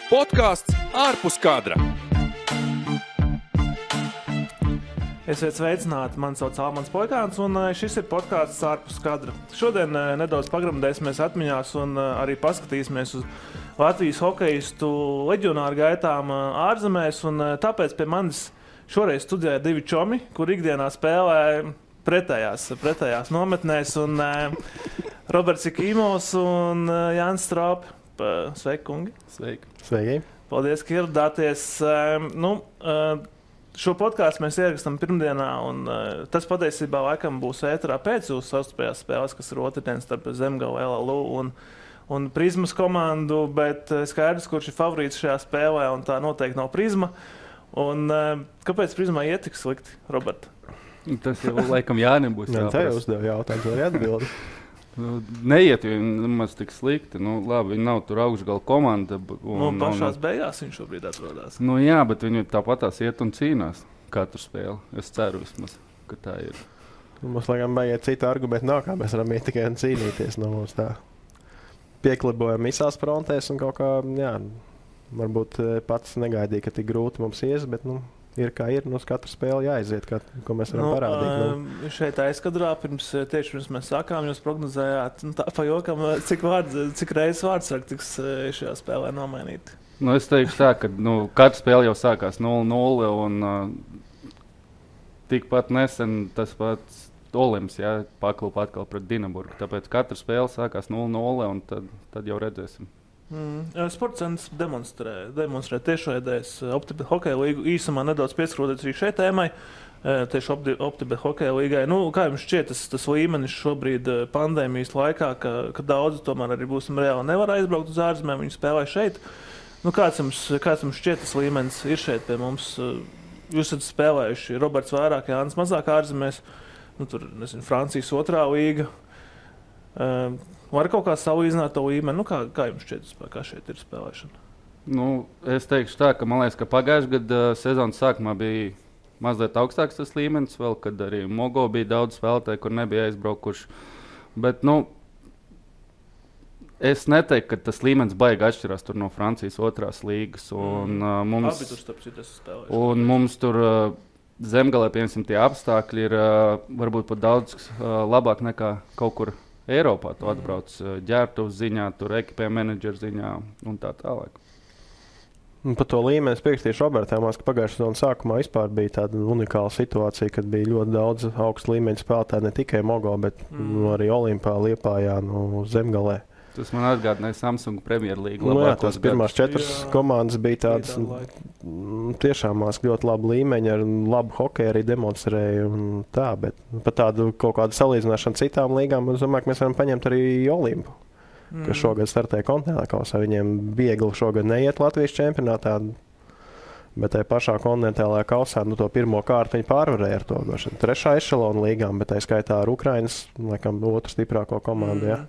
Podcasts ārpus kadra. Esiet sveicināti, mani sauc Almans Poikāns, un šis ir podcasts ārpus kadra. Šodien nedaudz pagremdēsimies atmiņās un arī paskatīsimies uz Latvijas hokeistu leģionāru gaitām ārzemēs, un tāpēc pie manis šoreiz studijā divi čomi, kur ikdienā spēlē pretējās nometnēs, un Roberts Ikīmovs un Jānis Strāpi. Sveiki, kungi! Sveiki! Paldies, ka ieradāties. Šo podkāstu mēs ierakstām pirmdienā, un tas patiesībā laikam būs ēterā pēc jūsu savstarpējās spēles, kas ir otrdien starp Zemgala, LLU un Prizmas komandu, bet skaidrs, kurš ir favorīts šajā spēlē, un tā noteikti nav Prizma. Un kāpēc Prizmā iet tik slikti, Robert? Tas jau laikam Jānim būs jāprast. Tā jau uzdev jautājums, vai atbildi? Neiet nemaz tik slikti. Labi, viņi nav tur augšgala komanda. Pašās beigās viņš šobrīd atrodās. Jā, bet viņi tāpatās iet un cīnās katru spēli. Es ceru vismaz, ka tā ir. Mums laikam baigiet citu argumentu nav, kā mēs varam iet tikai un cīnīties. Mums tā pieklibojam visās frontēs un kaut kā, varbūt pats negaidīja, ka tik grūti mums ies, bet, ir kā ir, uz katru spēli jāaiziet, ko mēs varam parādīt. Šeit aizkadrā, tieši pirms mēs sākām, jūs prognozējāt, tā pa jokam, cik reizes vārdsargi tiks šajā spēlē nomainīti? Es teikšu tā, ka katra spēle jau sākās 0-0 un tikpat nesen tas pats Olimps paklupa atkal pret Dinaburgu. Tāpēc katra spēle sākās 0-0 un tad jau redzēsim. Sports centrs demonstrē tiešraidēs Optibet hokeja līgu. Īsumā nedaudz pieskroties arī šai tēmai, tieši Optibet hokeja līgai. Kā jums šķiet tas līmenis šobrīd pandēmijas laikā, ka daudzi tomēr arī būsim reāli nevar aizbraukt uz ārzemēm, viņi spēlē šeit? Kāds jums šķiet tas līmenis ir šeit pie mums? Jūs esat spēlējuši Roberts vairāk, Jānis mazāk ārzemēs, Francijas otrā līga. Var kaut kā salīdzināt to līmeni? Kā jums šķiet, kā šeit ir spēlēšana? Es teikšu tā, ka man liekas, ka pagājušajā gada sezonas sākumā bija mazliet augstāks tas līmenis, vēl, kad arī Mogo bija daudz spēlētāju, kur nebija aizbraukuši. Bet, es neteiktu, ka tas līmenis baigi atšķirās tur no Francijas otrās līgas. Un, mums tur Zemgalē, piemēram, tie apstākļi ir varbūt pat daudz labāk nekā kaut kur Eiropā. Tu atbrauc ģērbtuves ziņā, tur ekipējuma menedžera ziņā un tā tālāk. Par to līmeni es piekritīšu Robertam, ka pagājušā sezonas sākumā vispār bija tāda unikāla situācija, kad bija ļoti daudz augstu līmeņu spēlētāju, ne tikai Mogo, bet arī Olimpā, Liepājā, Zemgalē. Tas man atgādināja Samsung Premjerlīgu. Tās pirmās 4 komandas bija tādas tiešām ļoti labu līmeņu, ar labu hokeju arī demonstrēja un tā, bet par tādu kaut kādu salīdzināšanu citām līgām, es domāju, ka mēs varam paņemt arī Olimpu, kas šogad startē kontinentālā kausā. Viņiem viegli šogad neiet Latvijas čempionātā, bet tajā pašā kontinentālajā kausā to pirmo kārtu viņi pārvarēja ar to trešā ešelona līgām, bet tā skaitā ar Ukrainas, laikam, otru stiprāko komandu,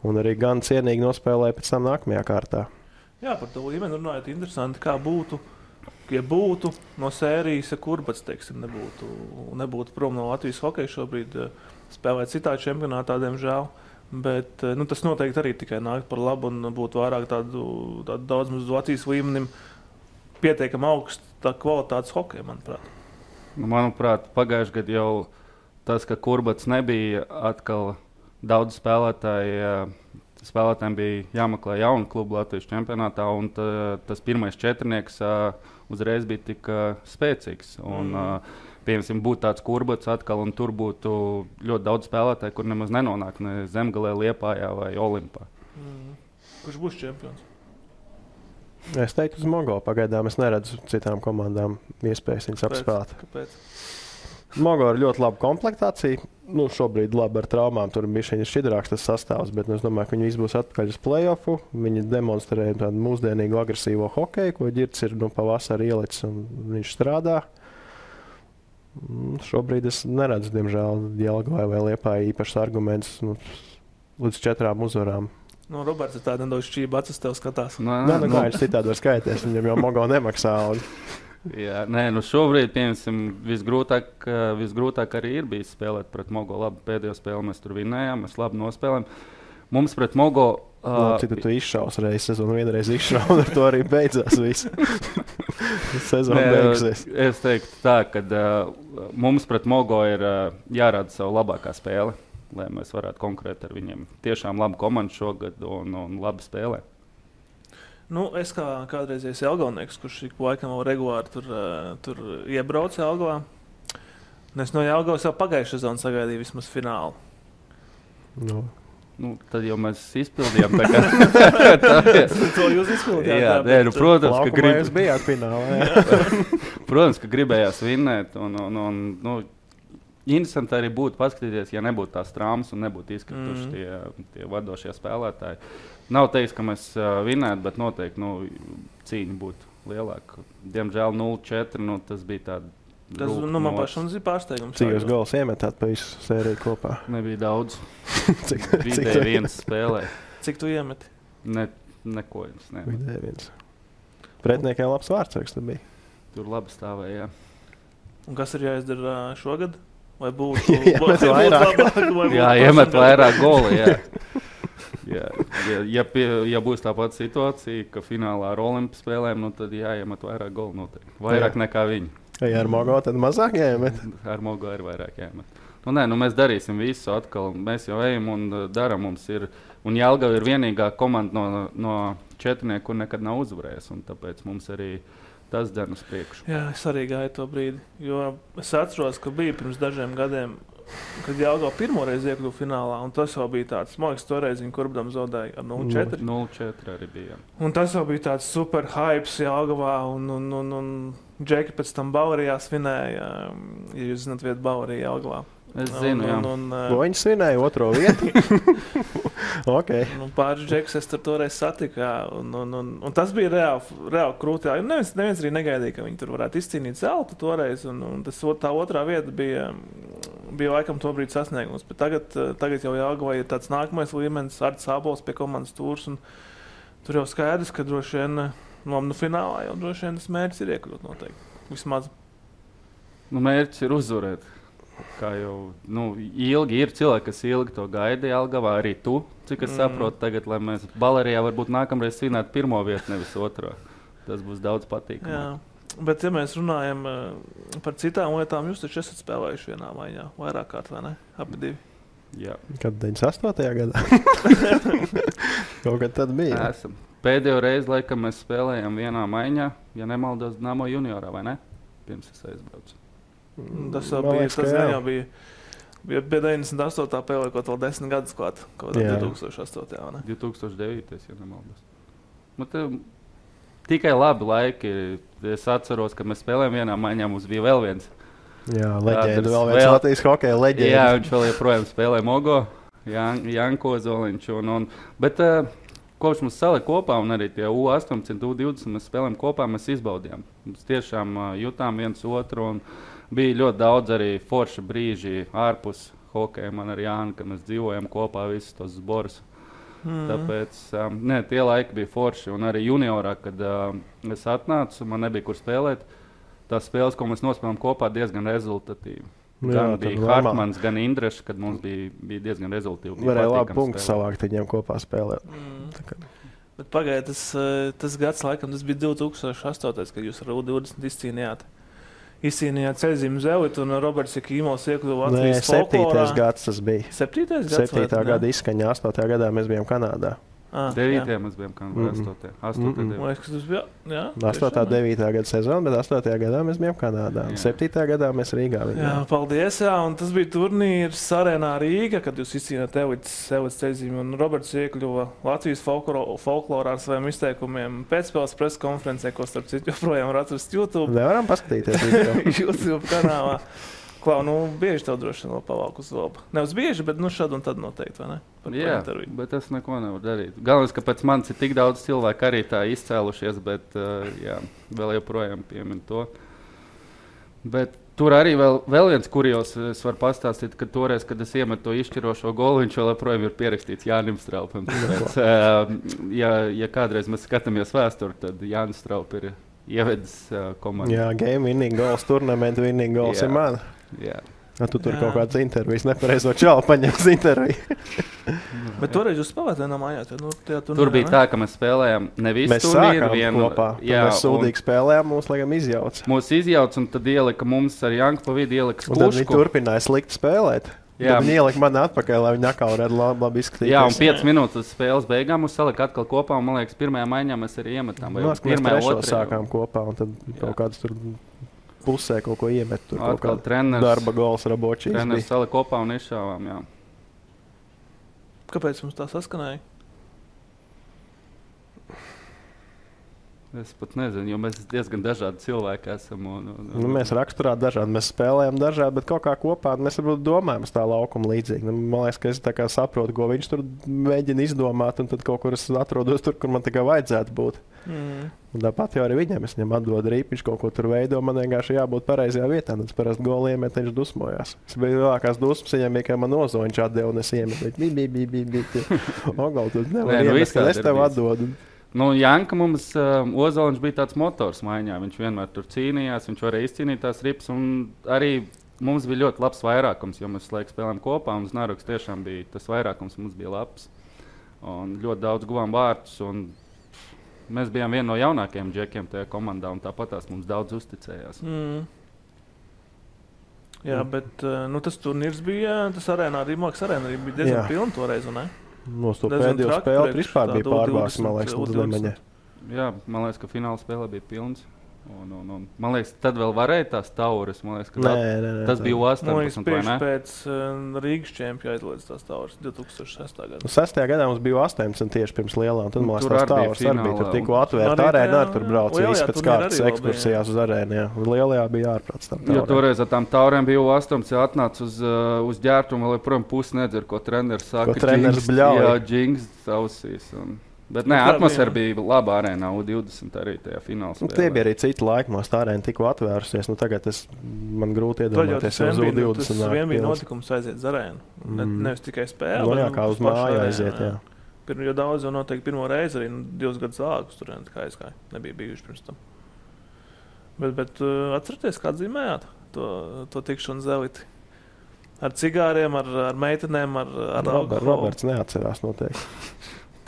Un arī gan cienīgi nospēlēja pēc tam nākamajā kārtā. Jā, par to līmeni runājot, interesanti, kā būtu, ja būtu no sērijas, ja Kurbats, nebūtu prom no Latvijas hokeja šobrīd spēlēt citā čempionātā, diemžēl. Bet tas noteikti arī tikai nāk par labu un būtu vairāk tādu daudz mums Latvijas līmenim pietiekami augsta kvalitātes hokeja, manuprāt. Manuprāt, pagājušajā gadā jau tas, ka Kurbats nebija atkal daudz spēlētājiem bija jāmeklē jaunu klubu Latvijas čempionātā, un tas pirmais četrnieks uzreiz bija tik spēcīgs. Piemēram, būtu tāds Kurbats atkal, un tur būtu ļoti daudz spēlētāju, kur nemaz nenonāk ne Zemgalē, Liepājā vai Olimpā. Kurš būs čempions? Es teiktu uz Mogo. Pagaidām es neredzu citām komandām iespējas viņus apspēlēt. Kāpēc? Mogo ir ļoti laba komplektācija. Šobrīd labi ar traumām, tur bija šķidrāks tas sastāvs, bet es domāju, ka viņi visi būs atpakaļ uz play-offu. Viņi demonstrē tādu mūsdienīgu agresīvo hokeju, ko Ģirds ir pavasarī ielicis un viņš strādā. Šobrīd es neredzu, diemžēl, Jelgavai vai Liepājai īpašs arguments līdz 4 uzvarām. Roberts ir tāda nedaudz šķība acis tev skatās. Kā viņš citādi var skaities, viņam jau Mogo nemaksā. Jā, šobrīd, piemēram, visgrūtāk arī ir bijis spēlēt pret Mogo. Labi, pēdējo spēli mēs tur vinējām, mēs labi nospēlējām. Mums pret Mogo Cik tu izšaus reiz sezonu, vienreiz izšaus, un ar to arī beidzās viss. Sezona beigsies. Es teiktu tā, ka mums pret Mogo ir jārāda savu labākā spēle, lai mēs varētu konkurēt ar viņiem. Tiešām laba komanda šogad un labi spēlē. Nu, es kā kādreizējais Jelgavnieks, kurš ik laikam vēl regulāri tur iebrauca Jelgavā. Es no Jelgavas jau pagājušā sezonu sagaidīju vismaz finālu. Nu, tad jau mēs izpildījām tā kā... To jūs izpildījāt? Jā, protams, ka jūs bijāt finālā. Protams, ka gribējās vinnēt. Nu, interesanti arī būtu paskatīties, ja nebūtu tās traumas un nebūtu izkrituši tie vadošie spēlētāji. Nav teiks, ka mēs vinnētu, bet noteikti cīņa būtu lielāka. Diemžēl 0-4, tas bija tāda. Tas man pašam ir pārsteigums. Cik jūs gols iemetāt pa visu sēriju kopā? Nebija daudz. Vidēji viens spēlē. Cik tu iemeti? Neko jums nemet. Vidēji viens. Pretniekai labs vārdsargs tu bija. Tur labi stāvēja, jā. Un kas ir jāizdara šogad? Vai būtu iemet vairāk? Jā, iemet vairāk goli, jā. Ja būs tā pati situācija, ka finālā ar Olimpu spēlēm, tad jāiemet vairāk goli noteikti. Vairāk nekā viņi. Ja ar Mogo tad mazāk jāiemet? Ar Mogo ir vairāk jāiemet. Mēs darīsim visu atkal. Mēs jau ejam un daram. Mums ir, un Jelgava ir vienīgā komanda no četrnieku, kur nekad nav uzvarējis. Un tāpēc mums arī tas dara uz priekšu. Jā, es arī gāju to brīdi. Jo es atceros, ka bija pirms dažiem gadiem, kad Jelgava pirmoreiz iekļuva finālā. Un tas jau bija tāds, man liekas, toreiz viņi Kurbdam zaudēja ar 0-4. 0-4 arī bija. Un tas jau bija tāds super hypes Jelgavā. Un Džeki pēc tam Bavarijā svinēja, ja jūs zināt vietu Bavarijā Jelgavā. Es zinu, jā. Viņi svinēja otro vietu. Okay. Pāris Džekus es tur toreiz satiku. Un tas bija reāli krūti. Neviens arī negaidīja, ka viņi tur varētu izcīnīt zeltu toreiz. Un tā otrā vieta bija laikam to brīdi sasniegums. Bet tagad jau Jelgavā ir tāds nākamais līmenis, Arts Ābols pie komandas tūrs. Tur jau skaidrs, ka droši vien finālā jau droši vien tas mērķis ir iekļūt noteikti. Vismaz. Mērķis ir uzvarēt. Kā jau ilgi ir cilvēki, kas ilgi to gaida Jelgavā, arī tu, cik es saprotu tagad, lai mēs Balerijā varbūt nākamreiz svinētu pirmo vietu, nevis otro. Tas būs daudz patīkamāk. Jā, bet ja mēs runājam par citām lietām, jūs taču esat spēlējuši vienā maiņā, vairāk kārt, vai ne? Abi divi. Jā. Kad 98. gadā? Kaut kad tad bija? Esam. Pēdējo reizi, laikam, mēs spēlējām vienā maiņā, ja nemaldos, Dinamo juniorā, vai ne? Pirms es aizbraucu. Tas jau bija 98. pēlē, kaut vēl 10 gadus klāt, kaut 2008. vai ne? 2009. ja nemaldos. Tikai labi laiki. Es atceros, ka mēs spēlējām vienā maiņā, mums bija vēl viens. Jā, leģenda, vēl viens Latvijas hokeja leģenda. Jā, viņš vēl joprojām spēlē Mogo, Janko Zoliņš. Bet kopš mums salika kopā, un arī tie U18, U20 mēs spēlējām kopā, mēs izbaudījām. Mēs tiešām jutām viens otru, un bija ļoti daudz arī forša brīži ārpus hokeja. Man ar Jānu, kad mēs dzīvojam kopā visus tos zborus. Tāpēc tie laiki bija forši. Un arī juniorā, kad es atnācu, man nebija kur spēlēt. Tās spēles, ko mēs nospēlējām kopā, diezgan rezultatīvi. Gan bija Hartmans, gan Indrešs, kad mums bija diezgan rezultīvi. Varēja labi punktu savākt viņiem kopā spēlēt. Bet pagāja, tas gads laikam, tas bija 2008, kad jūs ar U20 izcīnījāt ceļzīmu Zelitu un Roberts Jakīmovs iekļuva Latvijas folklorā. 7. gads tas bija. 7. gads? 7. gada izskaņā, 8. gadā mēs bijām Kanādā. 9. mēs bijām Kanādā, 8. 8. 9. gada sezona, bet 8. gadā mēs bijām Kanādā. 7. gadā mēs Rīgā bijām. Jā, paldies, jā, un tas bija turnīrs Arēnā Rīga, kad jūs izcīnāt Elites ceļzīmu, un Roberts iekļuva Latvijas folklorā ar saviem izteikumiem pēcspēles preskonferencē, ko starp citu joprojām var atrast YouTube. Nevaram paskatīties YouTube kanālā. Klau, bieži tev droši vien vēl pavalk uz zobu. Nevis bieži, bet šad un tad noteikti, vai ne? Jā, bet es neko nevaru darīt. Galvenais, ka pēc manis ir tik daudz cilvēku arī tā izcēlušies, bet vēl joprojām piemin to. Bet tur arī vēl viens kurjos es varu pastāstīt, ka toreiz, kad es iemetu to izšķirošo golu, viņš vēl joprojām ir pierakstīts Jānim Straupam. Ja kādreiz mēs skatāmies vēsturi, tad Jānis Straup ir ievedis komandu. Jā, game winning goals, turnamentu winning goals ir man. Jā. Tu tur kaut kādas intervijas nepareizo čalu paņems interviju. Bet toreiz jūs spēlējāt vienā mājā? Tur bija tā, ka mēs spēlējām nevis turnīru kopā. Mēs sūdīgi spēlējām, mūs laikam izjauca. Mūs izjauca un tad ielika mums ar Janku pa vidu ielika Skušku. Un tad viņi turpināja slikti spēlēt. Viņi ielika mani atpakaļ, lai viņi atkal varētu labi izskatīties. Jā, un 5 minūtes spēles beigām mums salika atkal kopā, un man liekas, pirmajā maiņā mēs arī iemetām. Mēs trešo sākām kopā, un tad kaut kāds tur pusē kaut ko iemet. Tur atkal darba gols Rabočīs. Treneris salika kopā un izšāvām, jā. Kāpēc mums tā saskanēja? Es pat nezinu, jo mēs diezgan dažādi cilvēki esam. Mēs raksturā dažādi, mēs spēlējam dažādi, bet kaut kā kopā mēs varbūt domājam uz tā laukuma līdzīgi. Man liekas, ka es tā kā saprotu, ko viņš tur mēģina izdomāt, un tad kaut kur es atrodos tur, kur man tā kā vajadzētu būt. Un tāpat jau arī viņam, es viņam atdodu rīpiņš, kaut ko tur veido, man vienkārši jābūt pareizajā vietā, un tas parasti goli iemet, viņš dusmojās. Es biju lielākās dusmas, viņam bija, ka man Ozoņš atdeva, un es iemetu, Ogal, tu nevar iemet, kad es tev atdodu. Nu, Janka mums, Ozoliņš bija tāds motors maiņā, viņš vienmēr tur cīnījās, viņš varēja izcīnīt tās ripas, un arī mums bija ļoti labs vairākums, jo mēs laiku spēlējām kopā, un Znaroks tiešām bija tas vairākums, mums bija labs, un ļoti daudz guvām vārtus, un mēs bijām viena no jaunākajiem džekiem tajā komandā, un tāpat tās mums daudz uzticējās. Jā, bet tas turnīrs bija, tas arēnā, Rīmāks arēnā bija diezgan pilni toreiz, un ne? Nos to pēdējo spēli vispār bija pārbāks, man liekas, līdz Lemaņai. Jā, man liekas, ka fināla spēlē bija pilns. Un, man liekas, tad vēl varēja tās tauras. Man liekas, ka tas bija 18, vai ne? Pēc Rīgas čempija aizlēdz tās tauras 2006. gadā. 6. gadā mums bija 18 tieši pirms lielā, un tad man liekas, tās tauras arī bija. Tur tikko atvērta arēna, tur brauca visi pēc kārtas ekskursijās uz arēnu. Lielajā bija ārprāts tam taurēm. Jo toreiz ar tām taurēm bija 18, atnāca uz ģērtumu, vēl joprojām pusi nedzer, ko treneris saka. Ko treneris bļauj. Jā, džings ausīs. Bet nē, atmosfēra bija laba arēnā, U20 arī tajā finālā spēlē. Tie bija arī citi laiki, mums tā arēna tikko atvērusies. Tagad man grūti iedomāties uz U20. Tas vien bija notikums aiziet uz arēnu. Nevis tikai spēle. Jā, kā uz māju aiziet, jā. Jo daudz jau noteikti pirmo reizi arī 2 gadus ākus tur kā aizgāja. Nebija bijuši pirms tam. Bet atcerieties, kā dzīmējāt to tikšanu zeliti? Ar cigāriem, ar meitenēm, ar alkoholu? Roberts neatcerās noteikti.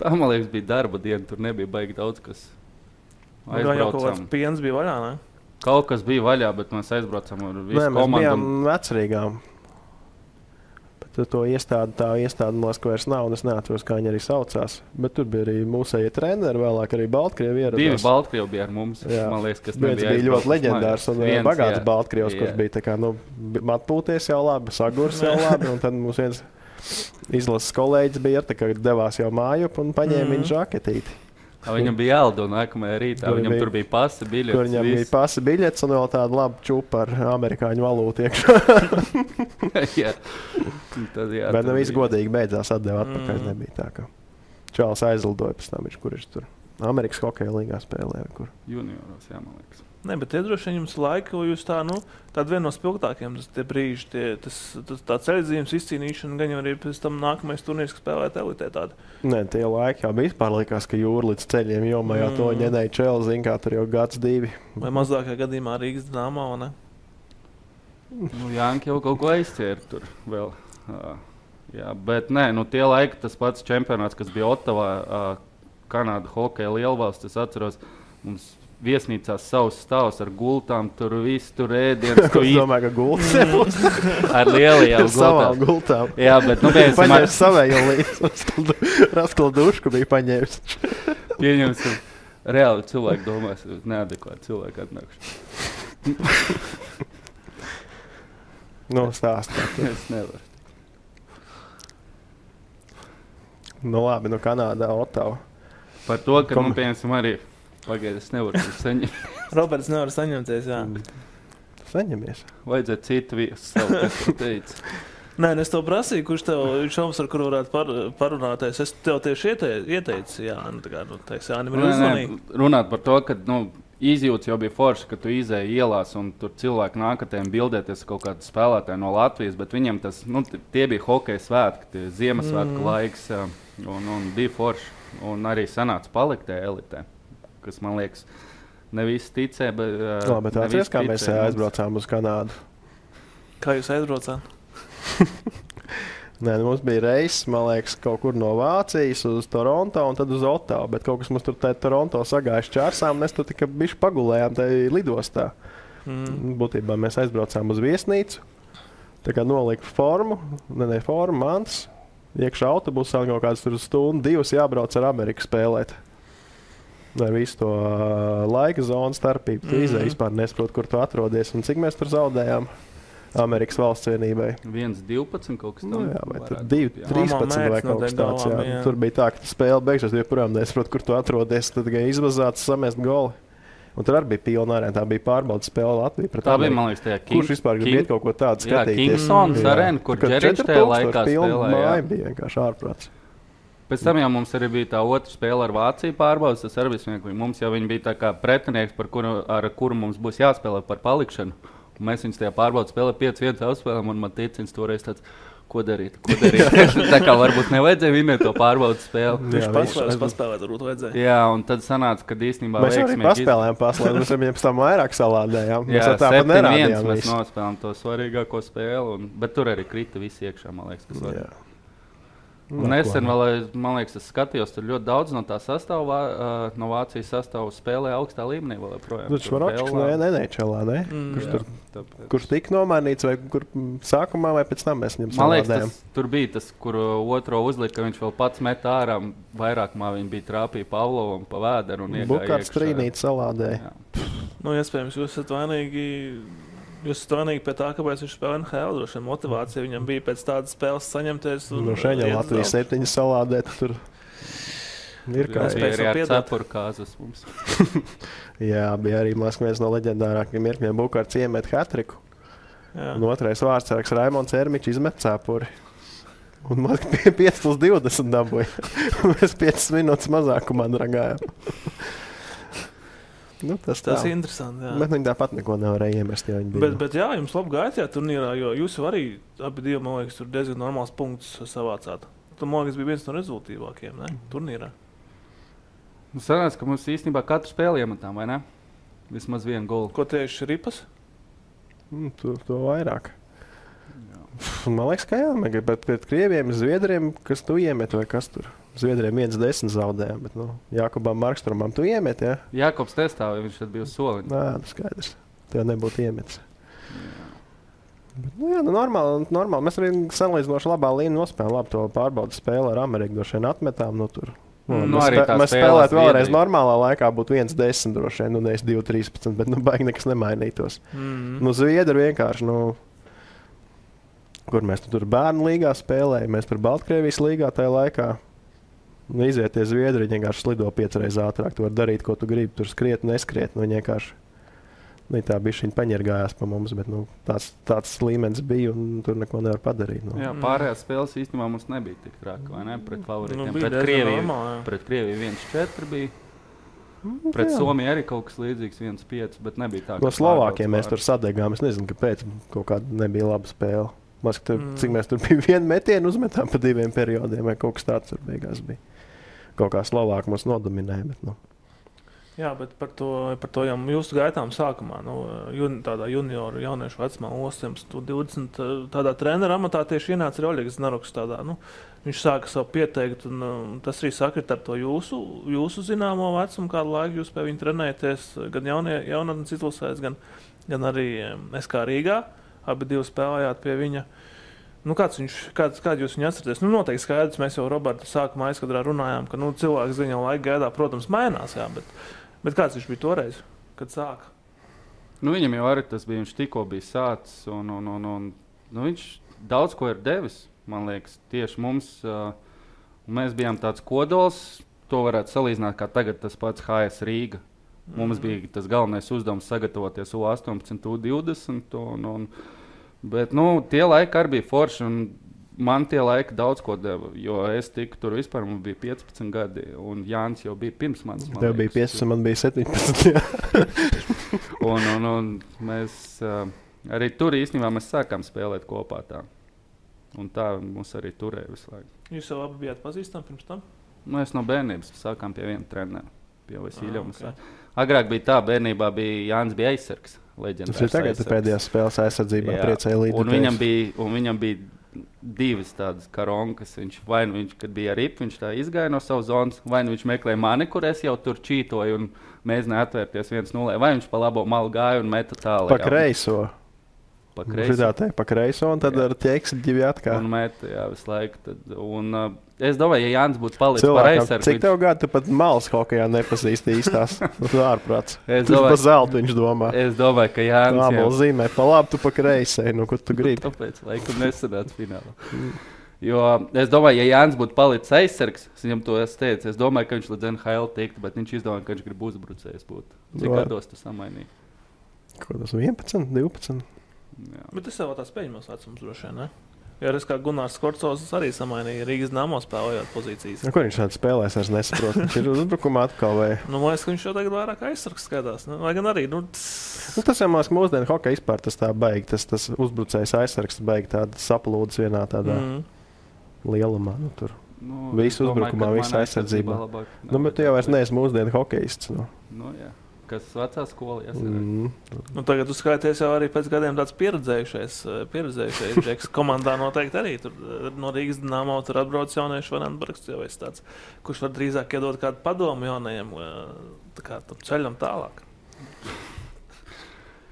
Tā, man liekas, bija darba diena, tur nebija baigi daudz, kas aizbraucām. Jau kaut kāds piens bija vaļā, ne? Kaut kas bija vaļā, bet mēs aizbraucām ar visu komandu. Mēs bijām vecerīgām. Bet to iestādi man liekas, ka vairs nav, un es neatceros, kā viņi arī saucās. Bet tur bija arī mūsējie treneri, vēlāk arī Baltkrievi ieradās. 2 Baltkrievi bija ar mums, man liekas, kas nebija aizbraucis. Bija ļoti leģendārs un bagāts Baltkrievs, kurš bija tā kā, atpūties jau labi, sagurs jau labi, un tad mums viens izlases kolēģis bija, ka devās jau mājup un paņēma viņa žaketīti. Viņam bija jālido nākamajā rītā, viņam tur bija pasa biļetes. Tur viņam bija pasa biļetes un vēl tāda laba čupa ar amerikāņu valūtu iekšā. Bet viss godīgi beidzās, atdeva atpakaļ. Nebija tā, ka Čāls aizlidoja pēc tam, kurš tur Amerikas hokeja līgā spēlēja. Junioros, jā, man liekas. Ne, bet iedroši jums laiku, jūs tāda viena no spilgtākiem tie brīži, tā ceļzīmes izcīnīšana, gan jau arī pēc tam nākamais turnīrs, kas spēlēt elitē tāda. Nē, tie laiki jau bija vispār likās, ka jūra līdz ceļiem jomājā to ņenēja Čēli, zin kā tur jau gads 2. Vai mazākajā gadījumā Rīgas Dinamo, ne? Janki jau kaut ko aizķēra tur vēl. Jā, bet nē, tie laiki, tas pats čempionāts, kas bija Ottavā, Kanāda hokeja lielvalsts, es atceros, mums viesnīcās savus stāvus ar gultām, tur viss tur ēdienas. Es domāju, ka gultas ar lielajām gultām. Savām gultām. Jā, bet paņēmis savējo līdzi. Raskala dušku bija paņēmis. Pieņemsim, reāli cilvēki domās, neadekvāti cilvēki atnākuši. Stāstāt. Es nevaru. Labi, Kanādā, Ottava. Par to, ka, pieņemsim arī pagaid, es nevaru saņemt. Roberts nevar saņemties, jā. Saņemies. Vajadzētu citu viesu savu, kas tu teici. Nē, es tev prasīju, kurš tev šoms, ar kuru varētu parunāties. Es tev tieši ieteicu, jā, Jānim ir uzmanīgi. Runāt par to, ka, izjūts jau bija forši, ka tu izēji ielās un tur cilvēki nākatēm bildēties kaut kādu spēlētāju no Latvijas, bet viņiem tas, tie bija hokeja svētki, tie Ziemassvētku laiks, un bija forši. Un arī sanāca palikt tajā elitē, kas, man liekas, ne visi ticē, bet atceries, kā mēs aizbraucām uz Kanādu? Kā jūs aizbraucāt? Nē, mums bija reizes, man liekas, kaut kur no Vācijas uz Toronto un tad uz Ottavu, bet kaut kas mums tur Toronto sagājuši čārsām, un mēs tur tikai bišķi pagulējām tajā lidostā. Būtībā mēs aizbraucām uz viesnīcu, tā kā nolika formu, mantas, iekšā autobusā kaut kāds tur stundu, 2 jābrauc ar Ameriku spēlēt. Ar visu to laika zonu starpību. Tu izēji vispār nesaproti, kur tu atrodies un cik mēs tur zaudējām. Amerikas valsts vienībai. 1-12 kaut kas tāds. Nu, jā, vai tur 2-13 vai kaut kas tāds. Jā. Tur bija tā, ka spēle beigšās, joprojām nesaprot, kur tu atrodies. Tad tikai izvazāts, samest goli. Un tur arī bija pilna arēna. Tā bija pārbaudas spēle Latvija pret tā Ameriku. Bija, man liekas, tajā Kurš vispār grib iet kaut ko tādu skatīties? Jā, Kingsons arēna, kur Džeričs tajā laikā spēlēja. Māja bija vienkārši ārprāts. Pēc tam jau mums arī bija tā otra spēle ar Vāciju pārbaudas. Tas arī bija mums jau viņi bija tā kā pretinieks, ar kuru mums būs jāspēlē par palikšanu. Un mēs viņus tajā pārbaudas spēlē 5-1 apspēlēm, un man ticins toreiz tāds, ko darīt. Tā kā varbūt nevajadzēja vinēt to pārbaudas spēli. Viņš paspēlēt, varbūt vajadzēja. Jā, un tad sanāca, ka īstenībā mēs arī paspēlējām paslēdz, mēs viņiem pēc tam vairāk salādējām. Jā, 7-1 mēs nospēlējām to svarīgāko spēli, bet tur arī krita visi iekšā, man liekas, kas var. Un nesen vēl, man liekas, es skatījos, tur ļoti daudz no tā sastāvā, no Vācijas sastāvā spēlē augstā līmenī vēl joprojām. Tur Švaročs nenečelā, ne? Kurš tika nomainīts, vai kur sākumā, vai pēc tam mēs viņam salādējām? Man liekas, tur bija tas, kur otro uzlika, ka viņš vēl pats met ārā, vairākumā viņi bija trāpīja Pavlovam pa vēderu un iegāja iekšā. Bukārts trīnīt salādēja. Nu, iespējams, jūs esat vainīgi pie tā, kāpēc viņš spēlē NHL. Droši vien motivācija viņam bija pēc tādas spēles saņemties. No šeit jau Latvijas 7 salādēt. Tur ir kā spēlēt. Bija arī ar cepuru kāzas mums. Jā, bija arī viens no leģendārākiem mirkļiem. Bukārts iemet hat-triku. Un otrais vārdsargs Raimonds Ermičs izmet cepuri. Un man 5+20 dabūja. Mēs 5 minūtes mazākumā dragājām. Nu, tas ir interesanti. Jā. Bet viņi tāpat neko nevarēja iemest. Bet jā, jums labi gāja tajā turnīrā, jo jūs jau arī abi divi, man liekas, tur diezgan normāls punkts savācāt. Tu, man liekas, bija viens no rezultīvākajiem, ne? Turnīrā. Nu, sanāca, ka mums īstenībā katru spēli iemetām, vai ne? Vismaz vienu golu. Ko tieši Ripas? To vairāk. Jā. Man liekas, ka jā, bet pret Krieviem, Zviedriem, kas tu iemet vai kas tur? Zviedriem 1-10 zaudējām, bet Jākubam Markstromam tu iemet, jā? Jākubs testāja, viņš tad bija uz soliņa. Nā, skaidrs. Tev nebūtu iemetis. Jā, normāli. Mēs arī salīdzinoši labā līnija nospēlējām. Labi, to pārbaudas spēli ar Ameriku droši vien atmetām. Mēs spēlētu vēlreiz normālā laikā būtu 1-10 droši vien, nevis 2-13, bet baigi nekas nemainītos. Zviedri vienkārši, kur mēs tur bērnu līgā spēlējām, mēs par Baltkrievijas līgā tajā laikā. Izieties Zviedri, viņi vienkārši slido 5 reizes ātrāk. Tu vari darīt, ko tu gribi. Tur skriet, neskriet. Viņi vienkārši tā bišķiņ paņergājās pa mums, bet tāds līmenis bija un tur neko nevar padarīt. Jā, pārējās spēles īstenībā mums nebija tik traki, vai ne? Pret favoritiem. Pret Krieviju 1-4 bija. Pret Somiju arī kaut kas līdzīgs 1-5, bet nebija tā. No Slovākiem mēs tur sadegām. Es nezinu, kāpēc kaut kāda nebija laba spēle. Cik mēs tur bija vienu metienu uzmetām pa 2 periodiem, vai kaut kas tāds tur beigās bija. Kaut kā Slovāki mums nodominēja. Bet, Jā, bet par to jau jūsu gaitām sākumā, tādā junioru jauniešu vecumā, 18-20, tādā trenera amatā tieši ienāca arī Oļegs Znaruks. Viņš sāka savu pieteikt, un tas arī sakrit ar to jūsu zināmo vecumu, kādu laiku jūs pie viņa trenējaties, gan jaunatnes izlasēs, gan arī SK Rīgā. Abi divi spēlējāt pie viņa. Kādu jūs viņu atceraties? Noteikti skaidrs, mēs jau Roberta sākumā aizkadrā runājām, ka cilvēks ziņā laika gaidā, protams, mainās, jā, bet kāds viņš bija toreiz, kad sāka? Viņam jau arī tas bija, viņš tikko bija sācis, un viņš daudz ko ir devis, man liekas, tieši mums. Mēs bijām tāds kodols, to varētu salīdzināt, kā tagad tas pats HS Rīga. Mums bija tas galvenais uzdevums sagatavoties U18, U20, bet tie laiki arī bija forši, un man tie laiki daudz ko deva, jo es tiku tur vispār, man bija 15 gadi, un Jānis jau bija pirms manis. Tev bija 15, man bija 17, un mēs arī tur īstenībā mēs sākām spēlēt kopā tā, un tā mums arī turēja visu laiku. Jūs jau abi bijāt pazīstami pirms tam? Mēs no bērnības sākām pie viena trenera, pie Vasiļevas. Okay. Agrāk bija tā, bērnībā Jānis bija aizsargs. Tas ir tagad pēdējās spēles aizsardzībā priecēja līdzi. Un viņam bija divas tādas karonkas. Viņš, kad bija ar ripu, viņš tā izgāja no savas zonas, vai nu viņš meklēja mani, kur es jau tur čītoju un mēģināju atvērties 1-0, vai viņš pa labo malu gāja un meta tālāk. Pa kreiso. Pa kreiso, un tad ar ķeksi ģivi atkal. Un meta, jā, visu laiku. Es domāju, ja Jānis būtu palicis par aizsargu. Cik tev gadu tu pat malas hokejā nepazīsti īstās? Tu ārprāts. Tu pa zeltu viņš domā. Es domāju, ka Jānis... Ābola zīmē, pa labi tu pa kreisē, nu, kur tu gribi. Tāpēc, laikam, nesanāca finālā. Jo es domāju, ja Jānis būtu palicis aizsargs, viņam to es teicu, es domāju, ka viņš līdz NHL tiktu, bet viņš izdomāja, ka viņš grib uzbrucējs būt. Cik gados tu samainīji? Ko tas 11, 12? Jā. Bet tas jau tās pēļņos vecums droši vien, ne? Jo es kā Gunārs Korcovs arī samainīja Rīgas Dynamo spēlējot pozīcijas. Ko viņš šādi spēlēs, es nesaprotu. Viņš ir uzbrukumā atkal vai? Man liekas, ka viņš jau tagad vairāk aizsargs skatās. Lai gan arī, tas jau mūsdienu hokeja vispār tas tā baigi, tas uzbrucējs aizsargs baigi tāda saplūdes vienā tādā lielumā. Tur visu uzbrukumā, visu aizsardzībā. Bet tu jau vairs neesi mūsdienu hokejists. Jā. Kas vecā skola tagad tu skaities jau arī pēc gadiem tāds pieredzējušais džeks. Komandā noteikti arī tur no Rīgas Dynamo tur atbrauc jaunieši Vanenbergs, jau es tāds, kurš var drīzāk iedot kādu padomu jaunajiem ceļam tālāk.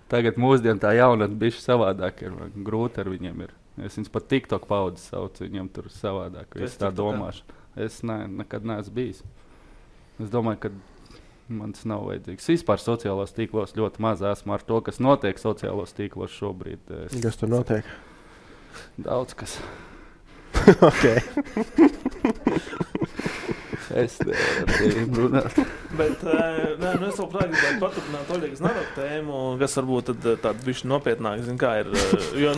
Tagad mūsdien tā jaunat bišķi savādāk ir, grūti ar viņiem ir. Es viņus pat TikTok paudzi saucu, viņiem tur savādāk, visu tā domāšu. Es nekad neesmu bijis. Es domāju, ka man tas nav vajadzīgs. Vispār sociālos tīklos ļoti maz esmu ar to, kas notiek sociālos tīklos šobrīd. Kas tur notiek? Daudz kas. Ok. Es nevaru runāt. Bet es vēl gribētu paturpināt Oļegas Znaroka tēmu, kas varbūt tāda bišķi nopietnāk, ir, jo,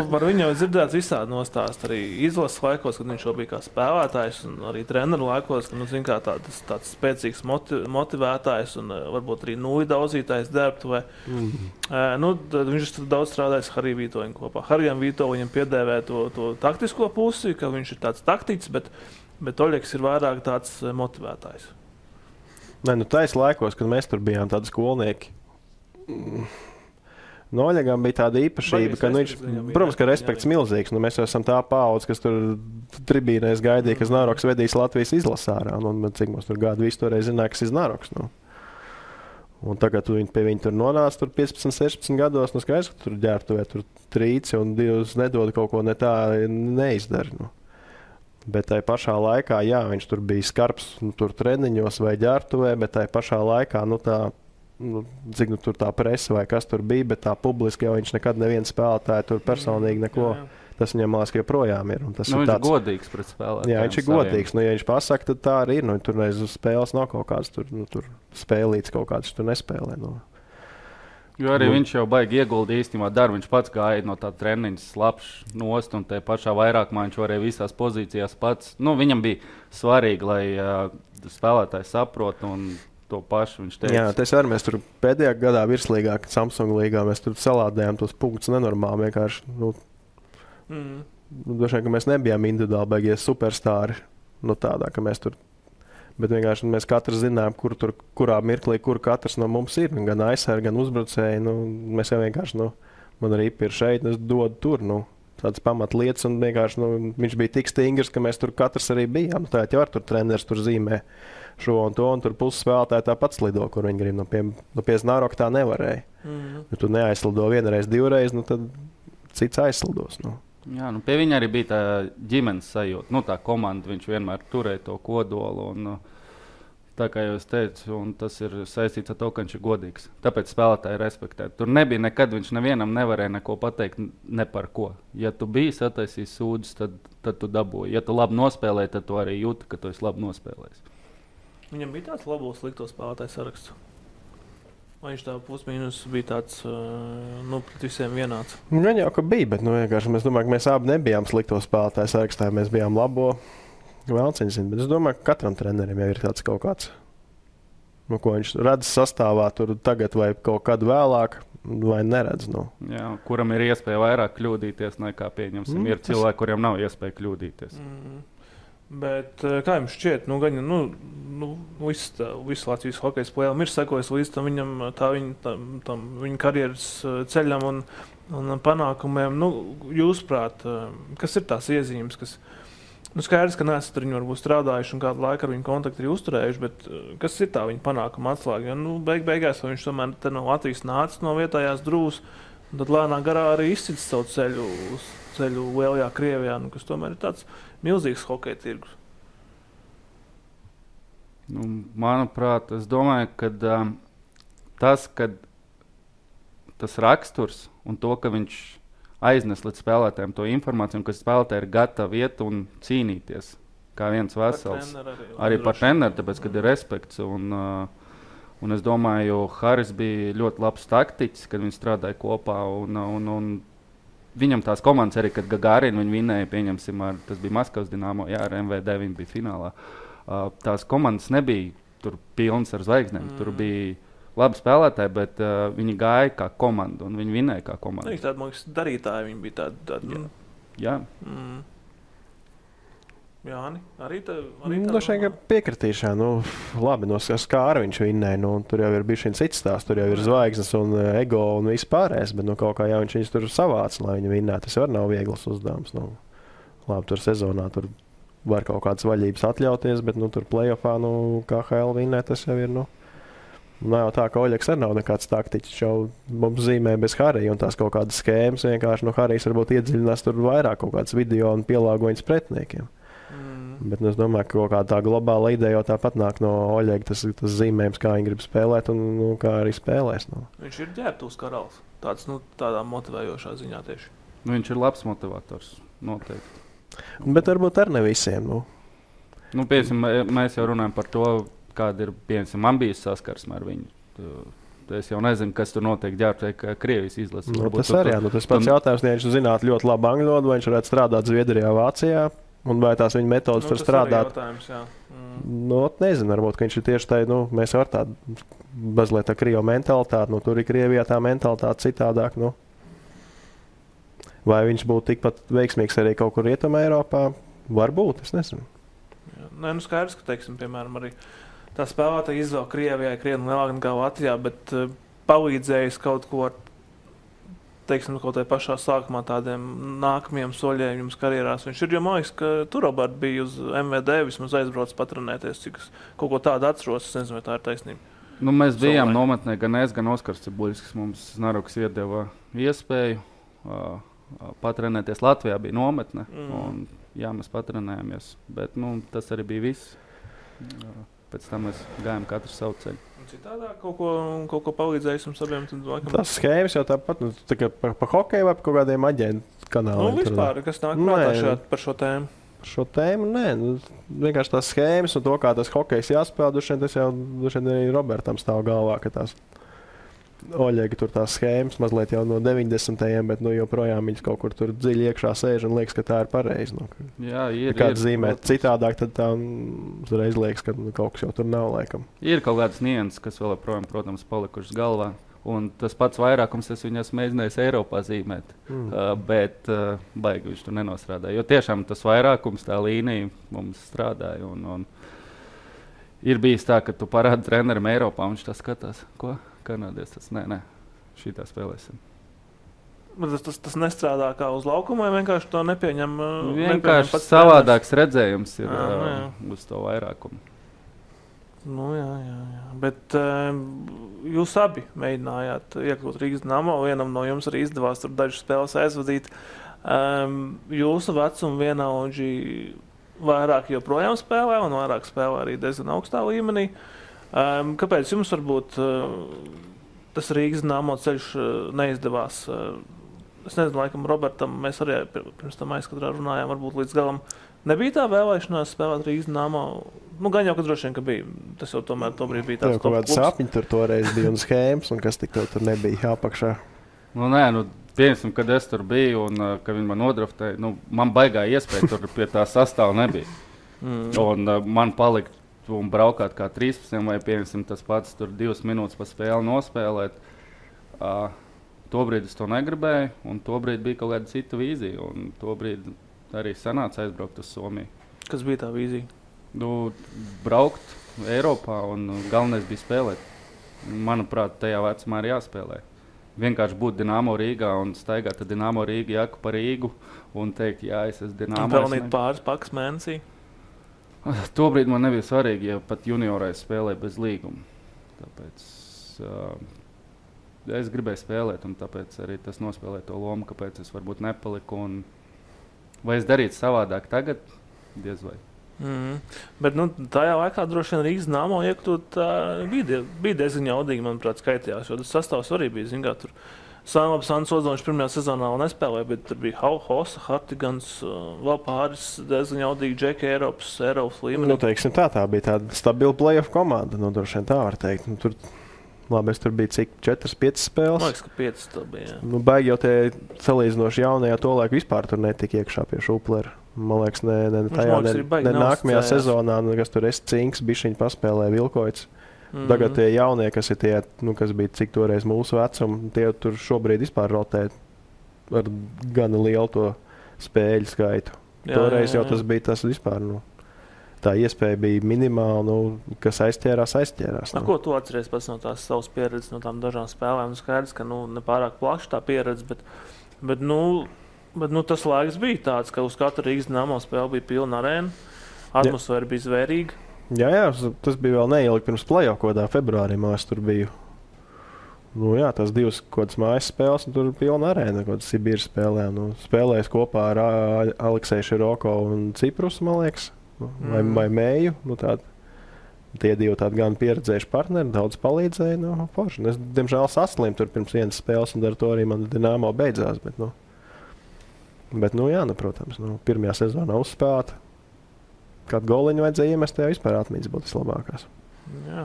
par viņu jau dzirdēts visādi nostāst arī izlases laikos, kad viņš jau bija kā spēlētājs un arī treneru laikos, ka, tāds spēcīgs motivētājs un varbūt arī nulli daudzītājs derbtuvē. Viņš ir daudz strādājis Hariju Vītoļu kopā. Harijam Vītoļam piedēvē to taktisko pusi, ka viņš ir tāds taktiķis, bet Oļegs ir vairāk tāds motivētājs. Tais laikos, kad mēs tur bijām tādi skolnieki, Oļegam bija tāda īpašība, ka viņš, protams, ka respekts milzīgs. Mēs jau esam tā paudze, kas tur tribīnēs gaidīja, ka Znaroks vedīs Latvijas izlasārā. Cik mums tur gadu visu toreiz zināja, kas ir Znaroks. Un tagad pie viņa tur nonāca 15, 16 gados. Skaidrs, ka tur ģērbtuvē tur trīci un divas nedod kaut ko ne tā neizdara. Bet tajā pašā laikā, jā, viņš tur bija skarbs tur treniņos vai ģērbtuvē, bet tajā pašā laikā, cik tur tā presa vai kas tur bija, bet tā publiski jau viņš nekad neviens spēlētāji tur personīgi neko, tas viņam liekas, ka joprojām ir. Tas viņš ir godīgs pret spēlētājiem. Jā, viņš ir godīgs. Ja viņš pasaka, tad tā arī ir. Tur reiz uz spēles nav kaut kāds tur spēlīts kaut kāds, tur nespēlē. Jo arī viņš jau baigi ieguldīja īstenībā darbu. Viņš pats gāja no tā treniņa slapš nost un te pašā vairākumā viņš varēja visās pozīcijās pats. Viņam bija svarīgi, lai spēlētāji saprot un to pašu viņš teica. Jā, tas arī mēs tur pēdējā gadā virslīgā, Samsung līgā, mēs tur salādējām tos punktus nenormāli vienkārši. Droši vien, ka mēs nebijām individuāli baigie superstāri, tādā, ka mēs tur. Bet vienkārši mēs katrs zinām, kurā mirklī, kur katrs no mums ir. Gan aizsargi, gan uzbrucēji. Mēs jau vienkārši, man arī ir šeit, es dodu tur. Tādas pamatlietas, un vienkārši viņš bija tik stingrs, ka mēs tur katrs arī bijām. Tā jau var tur treneris tur zīmē šo un to, un tur puses spēlētāji tāpat slido, kur viņi grib. Pie Znaroka tā nevarēja. Ja tu neaizslido vienreiz, divreiz, tad cits aizslidos. Jā, pie viņa arī bija tā ģimenes sajūta. Tā komanda, viņš vienmēr turēja to kodolu. Tā kā jau es teicu, un tas ir saistīts ar to, ka viņš ir godīgs. Tāpēc spēlētāji respektē. Tur nebija nekad, viņš nevienam nevarēja neko pateikt ne par ko. Ja tu biji sataisījis sūdzes, tad tu dabūji. Ja tu labi nospēlēji, tad tu arī jūti, ka tu esi labi nospēlējis. Viņam bija tāds labo slikto spēlētāju saraksts. Vai viņš tā pusmīnus bija tāds, pret visiem vienāds? Gan jau, ka bija, bet vienkārši mēs domājam, ka mēs abi nebijām slikto spēlētāju sarakstā, mēs bijām labo. Vēlciņš zina, bet es domāju, ka katram trenerim jau ir tāds kaut kāds, ko viņš redz sastāvā tur tagad vai kaut kad vēlāk, vai neredz. Jā, kuram ir iespēja vairāk kļūdīties nekā pieņemsim. Ir cilvēki, kuriem nav iespēja kļūdīties. Bet kā jums šķiet, visu Latvijas hokeja spēlēm ir sekojis līdz tam viņa karjeras ceļam un un panākumiem. Jūsuprāt, kas ir tās iezīmes, kas skaidrs, ka neesat ar viņu varbūt strādājuši un kādu laiku ar viņu kontaktu ir uzturējuši, bet kas ir tā viņa panākuma atslēga? Beigās viņš tomēr te no Latvijas nācis no vietējās Drūzas, un tad lēnā garā arī izcits savu ceļu lielajā Krievijā, kas tomēr ir tāds milzīgs hokeja tirgus. Manuprāt, es domāju, ka tas raksturs un to, ka viņš aiznes līdz spēlētājiem to informāciju, ka spēlētāji ir gatavi iet un cīnīties kā viens vesels. Arī par treneru, tāpēc, kad ir respekts. Un es domāju, Haris bija ļoti labs taktiķis, kad viņi strādāja kopā. Un viņam tās komandas arī, kad Gagarin viņi vinēja, pieņemsim, tas bija Maskavas Dinamo, ar MVD viņi bija finālā. Tās komandas nebija tur pilnas ar zvaigznēm. Tur bija labi spēlētāji, bet viņi gāja kā komanda un viņi vinēja kā komanda. Viņi tādi, man liekas, darītāji, viņi bija tādi. Jā. Jāni, arī tā? Šeit piekritīšā, labi, no Skāra viņš vinēja, tur jau ir bišķiņ cits stāsts, tur jau ir zvaigznes un ego un viss pārējais, bet kaut kā jau viņš tur savāc, lai viņi vinētu. Tas var nav viegls uzdevums. Labi, tur sezonā tur var kaut kādas vaļības atļauties, bet tur play-offā, KHL vinē, tas jau ir, Nav jau tā, ka Oļegs arī nav nekāds taktiķis. Jau mums zīmē bez Harija un tās kaut kādas skēmas. Vienkārši Harijs varbūt iedziļinās tur vairāk kaut kādas video un pielāgojas pretiniekiem. Bet es domāju, ka kaut kāda tā globāla ideja jau tāpat nāk no Oļega. Tas zīmējums, kā viņi grib spēlēt un kā arī spēlēs. Viņš ir ģērbtuvs karalis. Tādā motivējošā ziņā tieši. Viņš ir labs motivators, noteikti. Bet varbūt ar ne visiem. Mēs jau runājam par to, kāda ir, piemēram, man bijis saskarsme ar viņu. Es jau nezinu, kas tur notiek ģērbtuvē Krievijas izlases. Tas arī, tas pats jautājums, ja viņš zinātu ļoti labi angļu valodu, vai viņš varētu strādāt Zviedrijā, Vācijā, un vai tās viņa metodas tur strādāt. Nezinu, varbūt, ka viņš ir tieši tā, mēs var tādu mazliet tā Krievu mentalitāti, tur ir Krievijā tā mentalitāte citādāk, Vai viņš būtu tikpat veiksmīgs arī kaut kur Rietumē Eiropā? Varbūt, es nezinu. Nē, skaidrs, ka, teiksim, piemēram, arī tā spēlētāja izvēle Krievijai krietni lielāka nekā Latvijā, bet palīdzējis kaut ko ar, teiksim, kaut tai pašā sākumā tādiem nākamajiem soļiem jums karjerās. Viņš ir, jo man liekas, ka tur Robert bija uz MVD, vismaz aizbrauc patrenēties, cik es kaut ko tādu atceros, es nezinu, vai tā ir taisnība. Mēs bijām nometnē, gan es, gan Oskars Cibuļskis, mums Naruks iedeva iespēju patrenēties. Latvijā bija nometne, un mēs patrenējāmies, bet tas arī bija viss. Pēc tam mēs gājām katru savu ceļu. Citādāk kaut ko palīdzējis jums abiem? Tas schēmas jau tāpat, pa hokeju vai pa kaut kādiem aģentu kanāliem? Vispār, kas nāk prātā par šo tēmu? Par šo tēmu, nē. Vienkārši tās schēmas un to, kā tas hokejs jāspēl, tas jau arī Robertam stāv galvā, ka tās Oļegi tur tās schēmas mazliet jau no 90. bet joprojām viņas kaut kur tur dziļi iekšā sēž un liekas, ka tā ir pareizi. Jā, ir. Kāds zīmēt citādāk, tad tā uzreiz liekas, ka kaut kas jau tur nav laikam. Ir kaut kādas nianses, kas vēl joprojām, protams, palikušas galvā. Un tas pats vairākums es viņas mēģinājis Eiropā zīmēt, bet baigi viņš tur nenostrādāja. Jo tiešām tas vairākums, tā līnija mums strādāja. Un ir bijis tā, ka tu parādi trenerim Eiropā, un viņš tā skatās, ko? Kanādies, tas nē, šitā spēlēsim. Tas nestrādā kā uz laukumu, vai vienkārši to nepieņem? Vienkārši savādāks redzējums ir uz to vairākumu. Jā. Bet jūs abi mēģinājāt iekļūt Rīgas Dinamo, vienam no jums arī izdevās tur dažas spēles aizvadīt. Jūsu vecuma vienaudži vairāk joprojām spēlē un vairāk spēlē arī diezgan augstā līmenī. Kāpēc jums varbūt tas Rīgas Dinamo ceļš neizdevās? Es nezinu, laikam Robertam mēs arī pirms tam aizkadrā runājām, varbūt līdz galam nebija tā vēlēšanās spēlēt Rīgas Dinamo. Gan jau, ka droši vien, ka bija. Tas jau tomēr tobrīd bija tāds top klubs. Sapņi tur toreiz bija un schēmas, un kas tik tur nebija jāpakšā. Piemēram, kad es tur biju un kad viņi man nodraftēja, man baigā iespēja tur pie tā sastāva nebija. Un man palika un braukāt kā 13 vai piemēram tas pats tur 2 minūtes pa spēli nospēlēt. Tobrīd es to negribēju, un tobrīd bija kaut kāda cita vīzija, un tobrīd arī sanāca aizbraukt uz Somiju. Kas bija tā vīzija? Braukt Eiropā, un galvenais bija spēlēt. Manuprāt, tajā vecumā ir jāspēlē. vienkārši būt Dinamo Rīgā un staigāt ar Dinamo Rīgu jaku pa Rīgu un teikt, jā, es esmu Dinamo. Un pelnīt pāris pakas mēnesī? Tobrīd man nebija svarīgi, ja pat juniorais spēlēja bez līguma. Tāpēc es gribēju spēlēt, un tāpēc arī tas nospēlēja to lomu, kāpēc es varbūt nepaliku. Vai es darītu savādāk tagad? Diez vai. Bet tajā laikā droši vien Rīgas Dinamo iekļūt bija diezgan jaudīgi, manuprāt, skaitījās, jo tas sastāvs arī bija, zin kā, tur Sants Ozoņš pirmajā sezonā vēl nespēlēja, bet tur bija Hosa, Hartigans, vēl pāris diezgan jaudīgi džeki Eiropas līmenī. Teiksim tā bija tāda stabila play-off komanda, droši vien tā var teikt. Tur, labi, es tur biju cik 4-5 spēles. Man liekas, ka 5 tā bija, jā. Baigi jau tie salīdzinoši jaunajā to laiku vispār tur netika iekšā pie Šuplera. Man liekas, ne nākamajā sezonā, kas tur Cinks, bišķiņi paspēlēja Vilkoits. Tagad tie jaunie, kas ir tie, kas bija cik toreiz mūsu vecumi, tie tur šobrīd vispār rotē ar gana lielu to spēļu skaitu. Toreiz jau tas bija tas vispār, tā iespēja bija minimāla, kas aizķērās. Ko tu atceries pēc no tās savas pieredzes, no tām dažām spēlēm? Skaidrs, ka nepārāk plaši tā pieredze, bet tas laiks bija tāds, ka uz katru Rīgas Dinamo spēli bija pilna arēna, atmosfēra bija zvērīga. Jā, tas bija vēl neilgi pirms play-off, kodā februārī mēs tur biju. Tas 2 kodas mājas spēles, un tur bija pilna arēna, kodas Sibīras spēlē. Spēlējis kopā ar Aleksēju Široko un Ciprus, man liekas, vai Mēju. Tie divi tādi gan pieredzējuši partneri, daudz palīdzēja. Forši. Es, diemžēl, saslimu tur pirms vienas spēles, un ar to arī man Dinamo beidzās. Bet protams, pirmajā sezonā uzspēlēta. Kādu goliņu vajadzēja iemest, tajā vispār atmiņas būtu vislabākās. Jā.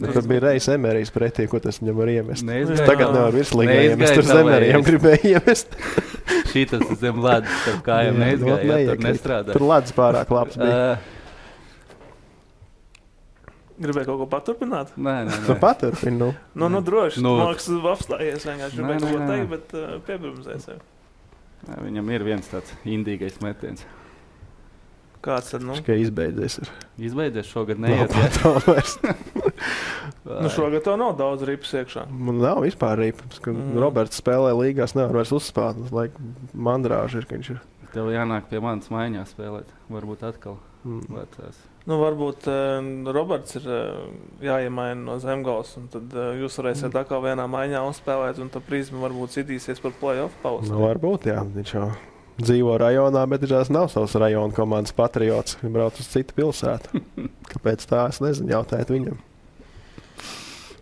Tas bija Reis Emerijs pretī, ko tas viņam var iemest. Tagad nevar virslīgā iemest, tur Zemerijam gribēja iemest. Šitas zem ledus, starp kājām neizgāja, tur nestrādā. Tur ledus pārāk labs bija. Gribēja kaut ko paturpināt? Nē. Paturpini, droši. Māks apstājies, vienkārši gribēja kaut ko teikt, bet piebrumzēja sevi. Viņam ir viens tāds indīgais metiens. Kāds tad, Tikai izbeidzies. Izbeidzies šogad neiet. Šogad tev nav daudz ripas iekšā. Man nav vispār ripas. Roberts spēlē līgās, nevar vairs uzspēlēt. Mandrāži ir, ka viņš ir. Tev jānāk pie manas maiņā spēlēt. Varbūt atkal vecās. Varbūt Roberts ir jāiemaina no Zemgals, un tad jūs varēsiet atkal vienā maiņā uzspēlēt, un tad Prizma varbūt citīsies par play-off pauzi. Varbūt, jā. Viņš jau dzīvo rajonā, bet viņš nav savs rajona komandas patriots. Viņš brauc uz citu pilsētu. Kāpēc tā? Es nezinu, jautājiet viņam.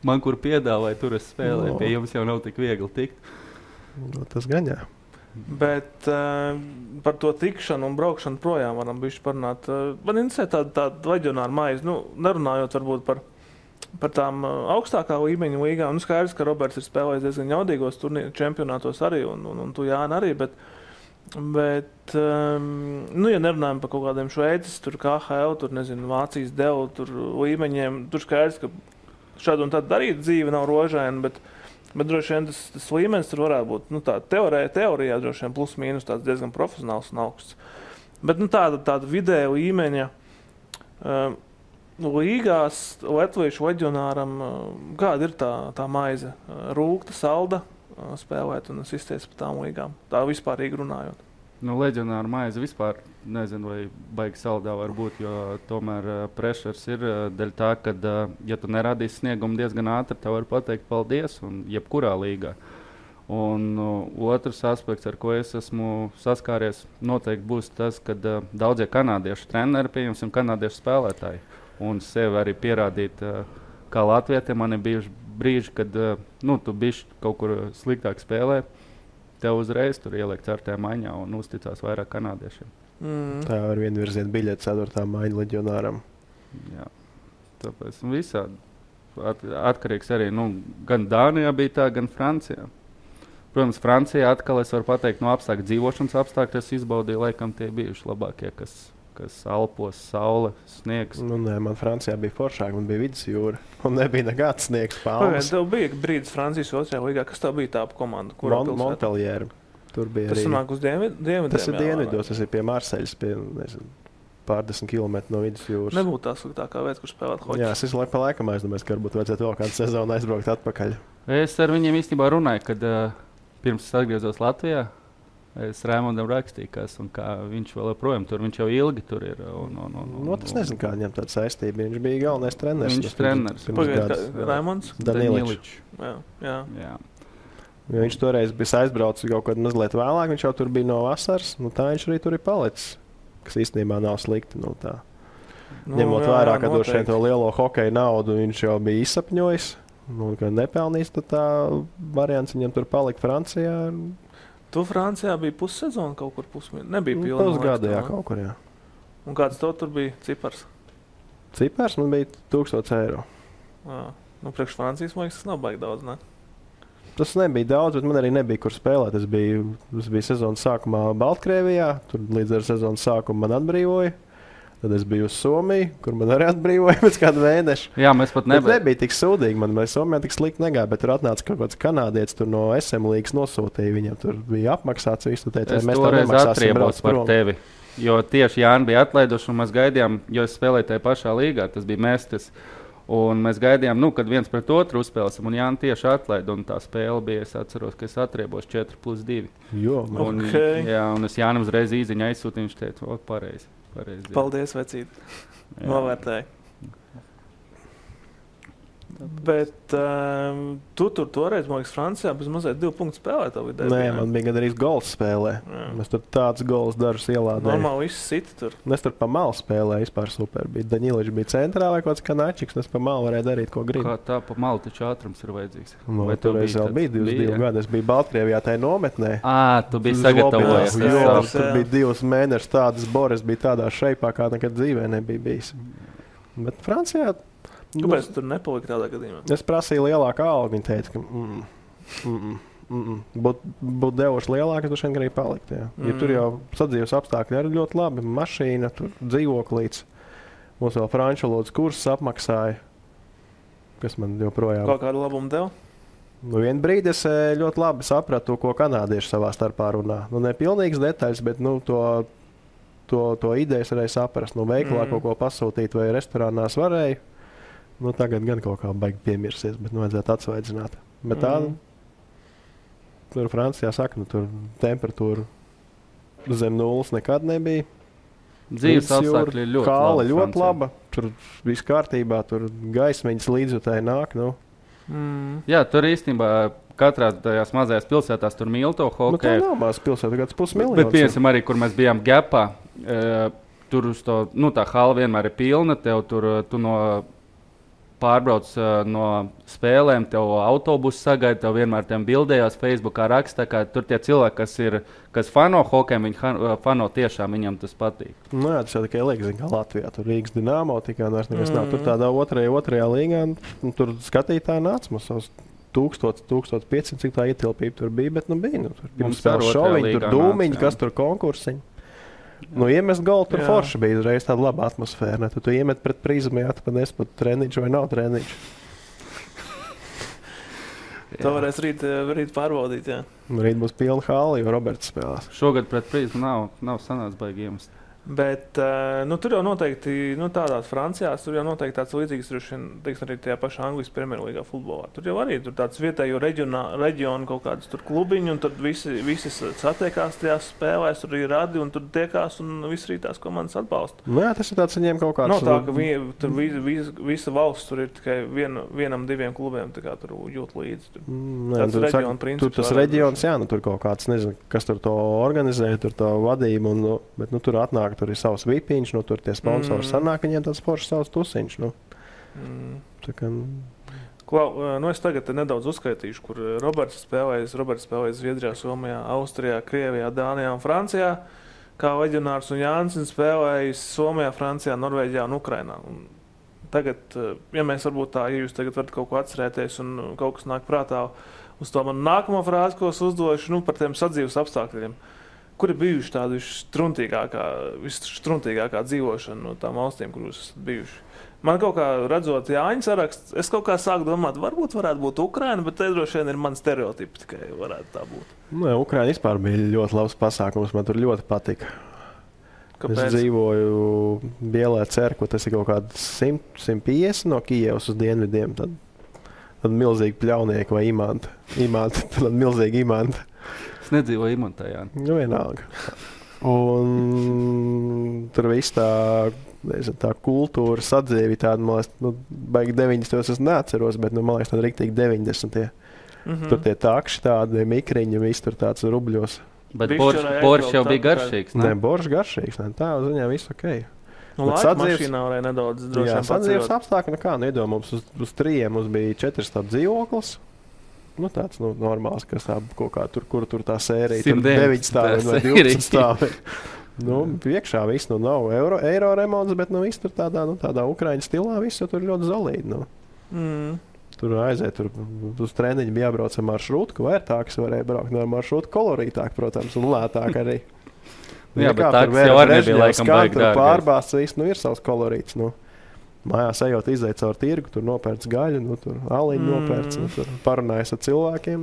Man, kur piedāvāja, tur es spēlēju. Pie jums jau nav tik viegli tikt. Tas gan jā. Bet par to tikšanu un braukšanu projām varam bišķi parunāt. Man interesē tāda leģionāra maize, nerunājot varbūt par tām augstākā līmeņa līgām. Skaidrs, ka Roberts ir spēlējis diezgan jaudīgos čempionātos arī, un tu Jāni arī, bet ja nerunājam par kaut kādiem Šveices, tur KHL, tur nezinu, Vācijas devu, tur līmeņiem, tur skaidrs, ka šādu un tādu darīt dzīve nav rožaina, bet droši vien tas līmenis tur varētu būt, tā teorijā droši vien plus mīnus tāds diezgan profesionāls un augsts. Bet tāda vidēja līmeņa līgās latviešu leģionāram, kāda ir tā maize? Rūgta, salda spēlēt un sistēs par tām līgām? Tā vispārīgi runājot. Leģionāra maize vispār nezinu, vai baigi saldā var būt, jo tomēr pressures ir dēļ tā, ka, ja tu neradīsi sniegumu diezgan ātri, tev var pateikt paldies un jebkurā līgā. Un otrs aspekts, ar ko es esmu saskāries, noteikti būs tas, ka daudzie kanādiešu treneri, pieņemsim kanādiešu spēlētāji, un sevi arī pierādīt, kā latvietiem man ir bijuši brīži, kad tu bišķi kaut kur sliktāk spēlē, tev uzreiz tur ieliek 4. maiņā un uzticās vairāk kanādiešiem. Tā var vienvirziet biļeti 4. maiņa leģionāram. Jā, tāpēc visādi. Atkarīgs arī, gan Dānijā bija tā, gan Francijā. Protams, Francijā atkal es varu pateikt, dzīvošanas apstākļi es izbaudīju, laikam tie bijuši labākie, kas Alpos, saule, sniegs. Man Francijā bija foršāk, man bija vidusjūra, un nebija nekāds sniegs palmas. Tev bija brīdis Francijas 2. līgā, kas tev bija tā komanda? Montpellier. Tur bija tas arī. Sanāk uz dienvidiem? Tas ir dienvidos, tas ir pie Marseļas, pie, nezinu, pārdesmit kilometru no vidusjūras. Nebūtu tā sliktākā vieta, kur spēlēt hoķi. Jā, es pa laikam aizdomājos, ka varbūt vajadzētu vēl kādu sezonu aizbraukt atpakaļ. Es ar viņiem īstenībā runāju, kad pirms es atgriezos Latvijā. Es Raimondam rakstīju, kā viņš vēl joprojām tur, viņš jau ilgi tur ir. Es nezinu, kā viņam tāda saistība. Viņš bija galvenais treneris. Viņš treneris. Raimonds? Daniličs. Jā. Ja viņš toreiz bija aizbraucis kaut kad mazliet vēlāk, viņš jau tur bija no vasaras, tā viņš arī tur ir palicis, kas īstenībā nav slikti. Ņemot vērā, ka droši vien to lielo hokeja naudu viņš jau bija izsapņojis, ka nepelnīs, tad tā variants viņam tur palikt Francijā. Tu Francijā bija pussezona kaut kur nebija pilna. Pusgada, jā, kaut kur, jā. Un kāds tev tur bija cipars? Cipars man bija 1000 eiro. Priekš Francijas, man liekas, tas nav baigi daudz, ne? Tas nebija daudz, bet man arī nebija, kur spēlēt. Es biju sezonas sākumā Baltkrievijā, tur līdz ar sezonas sākumu man atbrīvoja. Tad es biju uz Somiju, kur man arī atbrīvoja pēc kāda mēneša. Jā, mēs pat nebija tik sūdīgi. Man Somijā tik slikti negāja, bet tur atnāca kaut kāds kanādietis tur no SM līgas nosūtīja. Viņam tur bija apmaksāts visu. Teica, es toreiz atriebos par tevi, jo tieši Jāni bija atlaiduši un mēs gaidījām, jo es spēlēju tajā pašā līgā, tas bija Mestis. Un mēs gaidījām, kad viens pret otru uzspēlēsim, un Jānis tieši atlaida. Un tā spēle bija, es atceros, ka es atriebos 4+2. Un es Jānim uzreiz īziņu aizsūtīju, viņš teica, pareizi. Paldies, vecīt. Novērtēji. Bet tu tur toreiz, man liekas, Francijā bez mazliet 2 punktu spēlē. Nē, man bija gandrīz gols spēlē. Mēs tur tāds gols dažus ielādējām. Normāli viss sit tur. Es tur pa malu spēlēju, vispār super. Daniličs bija centrā vai kaut kāds Kanačiks, un es pa malu varēju darīt, ko gribu. Kā tā pa malu taču ātrums ir vajadzīgs? Vai toreiz vēl bija 22 gadi? Es biju Baltkrievijā tajā nometnē. Tu biji sagatavojies. Tur bija 2 mēnešus tādas Boris bija tādā šeipā, kā nekad dzīvē nebija bijis. Bet Francijā kāpēc tu tur nepalika tādā gadījumā? Es prasīju lielāku algu. Viņa teica, ka būtu devuši lielāku, tad šeit arī palikt. Ja tur jau sadzīves apstākļi arī ļoti labi. Mašīna, tur dzīvoklīts. Mums vēl franču valodas kursus apmaksāja. Kas man joprojām... Kaut kādu labumu deva? Vienu brīdi es ļoti labi sapratu, ko kanādieši savā starpā runā. Ne pilnīgas detaļas, bet to idejas varēja saprast. Veikalā kaut ko pasūtīt vai restorānās varēja. Tagad gan kaut kā baigi piemirsies, bet vajadzētu atsvaidzināt. Bet tā, tur Francijā saka, tur temperatūra zem 0 nekad nebija. Dzīves apstākļi ir ļoti labi. Ļoti laba. Tur viss kārtībā, tur gaismiņas līdzjutēji nāk. Jā, tur īstenībā katrā tajās mazajās pilsētās tur mīl to hokeju. Tā nav mazas pilsēta, kāds 500 000. Bet piemēram arī, kur mēs bijām Gepā, tur uz to, tā hala vienmēr ir pilna, tu pārbrauc no spēlēm, tev autobusu sagaida, tev vienmēr tiem bildējās Facebookā raksta, ka tur tie cilvēki, kas fano hokeju, viņi fano tiešām, viņam tas patīk. Jā, tas jau tikai liekas, kā Latvijā, tur Rīgas Dinamo, tikai vairs nekas nav. Tur tādā otrajā līgā, tur skatītāji nāca mums savus 1500, cik tā ietilpība tur bija, bet bija. Tur pirms spēles šoviņi, tur dūmiņi, kas tur konkursiņi. Iemest golu tur forši bija uzreiz tāda laba atmosfēra. Tu iemet pret prizmu, jāatpadies pat treniņš vai nav treniņš. To varēs rīt pārbaudīt, jā. Rīt būs pilna hāla, jo Roberts spēlās. Šogad pret prizmu nav sanācis baigi iemest. Bet tur jau noteikti, tādās Francijās, tur jau noteikti tāds līdzīgs, arī tajā pašā Anglijas Premjerlīgā futbolā. Tur jau arī tur tāds vietējo reģionu kaut kādas tur klubiņi, un tad visi satiekās tajās spēlēs, tur ir radi, un tur tiekās, un visi arī tās komandas atbalsta. Jā, tas ir tāds viņiem kaut kāds... Nav tā, ka tur visa valsts tur ir tikai vienam, 2 klubiem, tā kā tur jūt līdzi. Tāds reģionu princips. Tur tas reģions, jā, tur kaut kāds, nezinu, kas tur to organizē, tur to vadību, bet tur atnāk. Tur ir savs vipiņš, tur tie sponsori sanāk, viņiem tāds foršs savs tusiņš. Es tagad nedaudz uzskaitīšu, kur Roberts spēlējas Zviedrijā, Somijā, Austrijā, Krievijā, Dānijā un Francijā, kā leģionārs, un Jānis spēlējas Somijā, Francijā, Norvēģijā un Ukrainā. Un tagad, ja mēs varbūt tā, ja jūs tagad varat kaut ko atcerēties un kaut kas nāk prātā uz to manu nākamo frāzi, ko es uzdošu, par tiem sadzīves apstākļiem. Kur ir bijuši tāda visstruntīgākā dzīvošana no tām valstīm, kur jūs esat bijuši? Man kaut kā redzot Jāņa saraksts, es kaut kā sāku domāt, varētu būt Ukraina, bet te droši vien ir mani stereotipi, tikai varētu tā būt. Ukraina vispār bija ļoti labs pasākums, man tur ļoti patika. Kāpēc? Es dzīvoju Bielē Cerkvā, tas ir kaut kāds 150 no Kijevas uz dienvidiem. Tad milzīgi pļaunieki vai imanta. Tad milzīgi imanta. Es nedzīvoju imantā, jā. Nu, vienalga. Un tur viss tā kultūra sadzīvi tāda, man liekas, baigi 90. es neatceros, bet, man liekas, tāda riktīgi 90. Tur tie takši tādi, mikriņi, viss tur tāds rubļos. Bet boršs jau bija garšīgs, ne? Nē, boršs garšīgs, ne? Tā uz viņā viss ok. Nu, laika mašīnā varēja nedaudz droši vien sadzīves apstākļi, iedomājums uz 3 mums bija 4 stāv dzīvoklis. Nu, tāds normāls, kas tā kaut kā kur tā sērija, tur 9 stāvi vai 12 stāvi. Priekšā viss, nav eiro remonts, bet viss tur tādā Ukraiņu stilā, viss tur ļoti zolīdi, Tur aiziet, uz treniņu bija jābrauc ar maršrūtu, vērtāks varēja braukt ar maršrūtu, kolorītāk, protams, un lētāk arī. Jā, bet tāks jau arī nebija laikam baigi dārgais. Pārbāsts viss, ir savs kolorīts, Mājās ejot, izēt caur tirgu, tur nopērts gaļu, tur aliņu nopērts, tur parunājas ar cilvēkiem.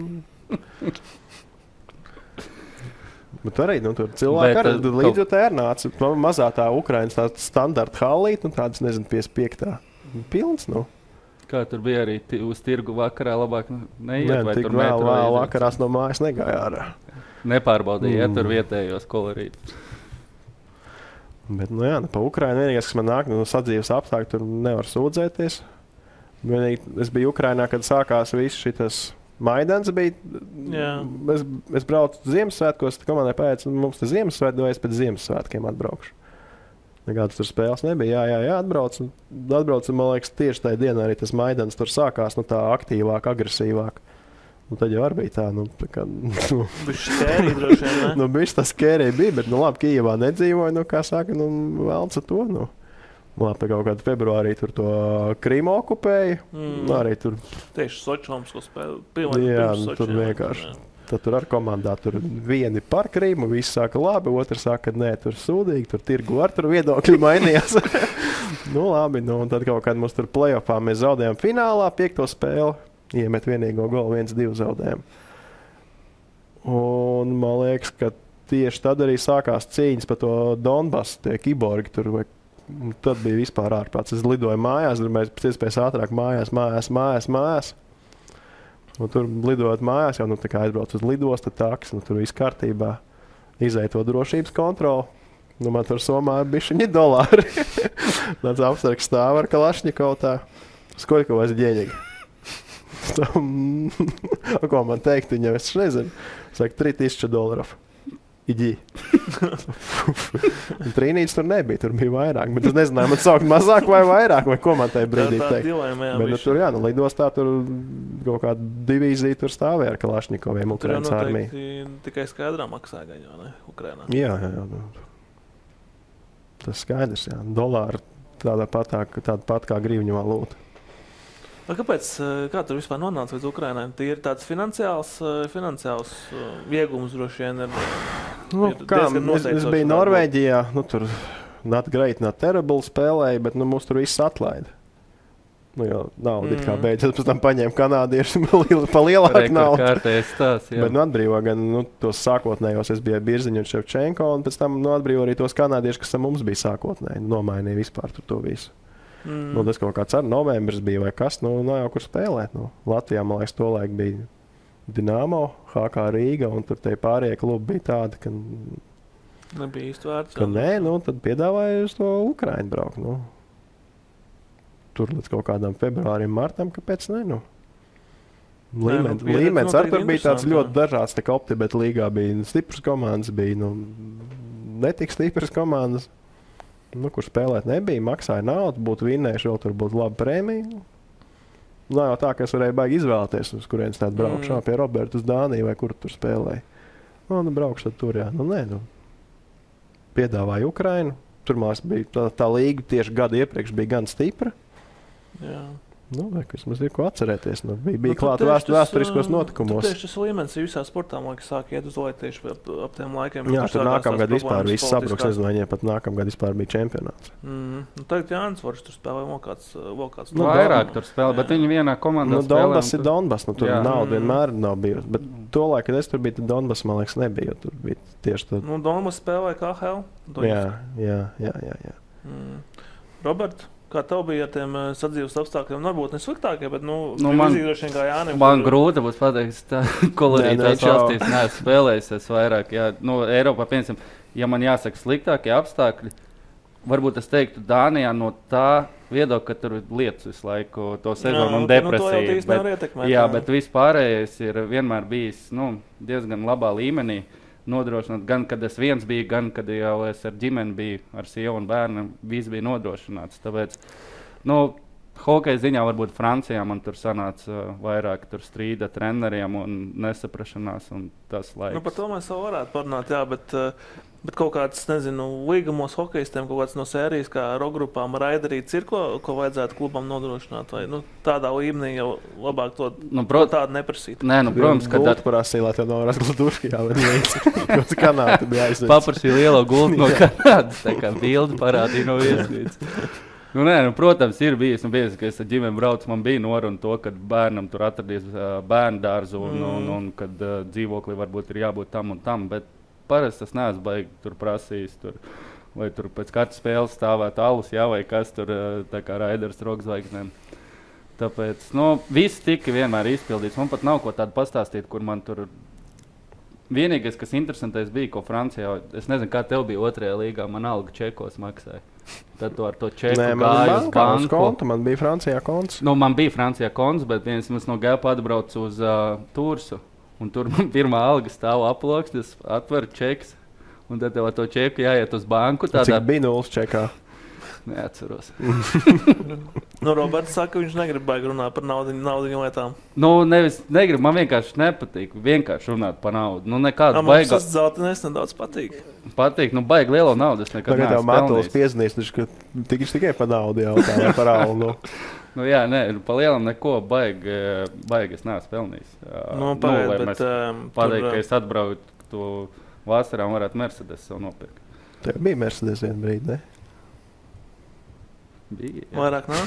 Bet arī, tur cilvēki arī līdzjutēji nāca. Mazā tā Ukrainas tā standarta hallīte, tādas, 55. Pilns, Kā tur bija arī uz tirgu vakarā labāk neiet, vai tur vēl vakarās no mājas negāja ārā. Nepārbaudīja, tur vietējos kolorītus. Bet, pa Ukrainu vienīgais, kas man nāk, sadzīves apstākļi, tur nevar sūdzēties. Es biju Ukrainā, kad sākās viss šitas Maidans bija. Es braucu Ziemassvētkos, komandai pēc, mums te Ziemassvētku, es pēc Ziemassvētkiem atbraukšu. Nekādas tur spēles nebija. Jā, atbraucu, man liekas, tieši tajā dienā arī tas Maidans tur sākās, tā aktīvāk, agresīvāk. Tad jau arī bija tā, Bišķi skērī droši vien, ne? Bišķi tā skērī bija, bet, labi, Kijevā nedzīvoja, kā saka, vēlts ar to, Labi, tā kaut kādā februārī tur to Krimu okupēja, arī tur. Tieši Sočomsko spēle. Jā, tur vienkārši. Tad tur ar komandā tur vieni par Krimu, visi saka labi, otrs saka, ka nē, tur sūdīgi, tur tirgu ar tur viedokļi mainījās. Labi, un tad kaut kādā mums tur play-offā mēs zaudējām finālā 5. spēli, iemet vienīgo golu, 1-2 zaudējām. Un man liekas, ka tieši tad arī sākās cīņas par to Donbasu, tie kiborgi tur, tad bija vispār ārprāts. Es lidoju mājās, tur mēs pēc iespējas ātrāk mājās. Un tur lidojot mājās, jau tā kā aizbrauc uz lidostu, taks, tur viss kārtībā. Izēja to drošības kontroli. Man tur Somā ir bišķiņi dolāri. Tāds apsargs stāv ar Kalašņikovu tā. Skoļko vairs ģēņīgi. Ko man teikt, viņam es nezinu. Saka, $3000. Iģī. Trīnītes tur nebija, tur bija vairāk. Bet es nezināju, man saukt mazāk vai vairāk, vai ko man tajā brīdī teikt. Bet tur, lidostā tur kaut kāda divīzija tur stāvēja ar Kalašņikoviem Ukrainas armiju. Tur jau noteikti tikai skaidrā maksā gaņo, ne? Ukrainā. Jā. Tas skaidrs, jā. Dolāri tāda pat kā grivņu valūta. Kāpēc, kā tur vispār nonāca līdz Ukrainai? Tie ir tāds finansiāls iegums droši vien ir diezgan noteikts. Es biju Norvēģijā, tur not great, not terrible spēlēja, bet mūs tur viss atlaida. Jo naudu it kā beidzot, pēc tam paņēma kanādieši pa lielāku naudu. Kārtējais tās, jā. Bet atbrīvo gan tos sākotnējos, es biju Birziņu un Ševčenko, un pēc tam atbrīvo arī tos kanādieši, kas mums bija sākotnēji, nomainīja vispār to visu. Tas kaut kāds ar novembris bija vai kas, nav jau kur spēlēt. Latvijā, man liekas, tolaik bija Dinamo, HK Rīga, un tur tie pārējie klubi bija tādi, ka nebija īsti vērts. Ka nē, tad piedāvāja uz to Ukrainu braukt. Tur līdz kaut kādam februārim, martam, kāpēc ne? Līmenis ar tur bija tāds ļoti dažāds, tā kā Optibet līgā bija stipras komandas, bija netik stipras komandas. Kur spēlēt nebija, maksāja naudu, būtu vinnējuši, vēl tur būtu laba prēmija. Nav jau tā, ka es varēju baigi izvēlēties, uz kurienes tādu braukšu, pie Roberta uz Dāniju vai kur tur spēlēja. Braukšu tad tur, jā. Piedāvāja Ukrainu. Tur mums bija tā līga tieši gadu iepriekš bija gan stipra. Jā. Kas mums ir ko atcerēties. Bija klāta vēsturiskos notikumos. Tieši tas līmenis visā sportā, man liekas, sāk iet uz leju tieši ap tiem laikiem. Jā, tur nākamgad vispār viss sabruks. Es domāju, pat nākamgad vispār bija čempionāts. Tagad Jānis Vorš tur spēlē vēl kāds. Vairāk tur spēlē, bet viņi vienā komandā spēlē. Donbass ir Donbass. Tur nauda vienmēr nav bijusi. Bet to laiku, kad es tur biju, tad Donbass, man liekas, nebija. Tur bija tieši tad. Nu, Donbass spēlēja KHL. Jā. Robert, kā tev bija ar tiem sadzīves apstākļiem? Varbūt ne sliktākie, bet man grūti būs pateikt, tā kolorītās valstīs neesmu spēlējis vairāk. Jā. Eiropā, piemēram, ja man jāsaka sliktākie apstākļi, varbūt es teiktu Dānijā no tā viedokļa, ka tur ir lietas visu laiku, to sezonu un depresija. Bet vispārējais ir vienmēr bijis diezgan labā līmenī. Nodrošināt, gan kad es viens biju, gan kad jau es ar ģimeni biju, ar sievu un bērnu, viss bija nodrošināts. Tāpēc, hokeja ziņā varbūt Francijā man tur sanāca vairāk tur strīda treneriem un nesaprašanās un tas laiks. Par to mēs vēl varētu parunāt, jā, bet kaut kāds, nezinu, līgumos hokejistiem, kaut kāds no sērijas, kā rokgrupām raidarīts ir, ko vajadzētu klubam nodrošināt, vai tādā līmenī jau labāk to tādu neprasīt. Nē, protams, ka gultu prasīja, lai tev nav razgladuški jāved līdz Kanādu bija aizvedis. Paprasīja lielo gultu no Kanādas, tā kā bildi parādīja no viesnīcas. Protams, ir bijis, ka es ar ģimeni braucu, man bija noruna to, ka bērnam tur atradīs bērnu dārzu un kad dzīvoklī varbūt ir jābūt tam un tam, bet parasti tas neesmu baigi tur prasījis, vai tur pēc katras spēles stāvēt alus, vai kas tur tā kā Raiders rokzvaigznēm. Tāpēc, viss tika vienmēr izpildīts. Man pat nav ko tādu pastāstīt, kur man tur... Vienīgais, kas interesantais bija, ko Francijā, es nezinu, kā tev bija 2. līgā, man alga čekos maksāja. Tad tu ar to čeku gāju uz banku. Kontu, man bija Francijā konts. Man bija Francijā konts, bet viens mums no Gēpa atbrauc uz Tursu. Un tur man pirmā alga stāv aploksnes, atver čeks, un tad tev ar to čeku jāiet uz banku. Cik bija 0 čekā? Neatceros. Roberts saka, viņš negrib baigi runāt par naudiņu lietām. Nevis negrib, man vienkārši nepatīk vienkārši runāt par naudu. Nekādu baigi. Man tas zeltenēs nedaudz patīk. Patīk, baigi lielo naudu es nekad neesmu pelnījis. Tagad tev Matulis piezinīs, ka tikai par naudu jautā, vai par algu. Pa lielam neko baigi es neesmu pelnījis. Pateikt, ka es atbraucu vasarā un varētu Mercedes sev nopirkt. Tev bija Mercedes vienu brīdi, ne? Bija, jā. Vairāk nav?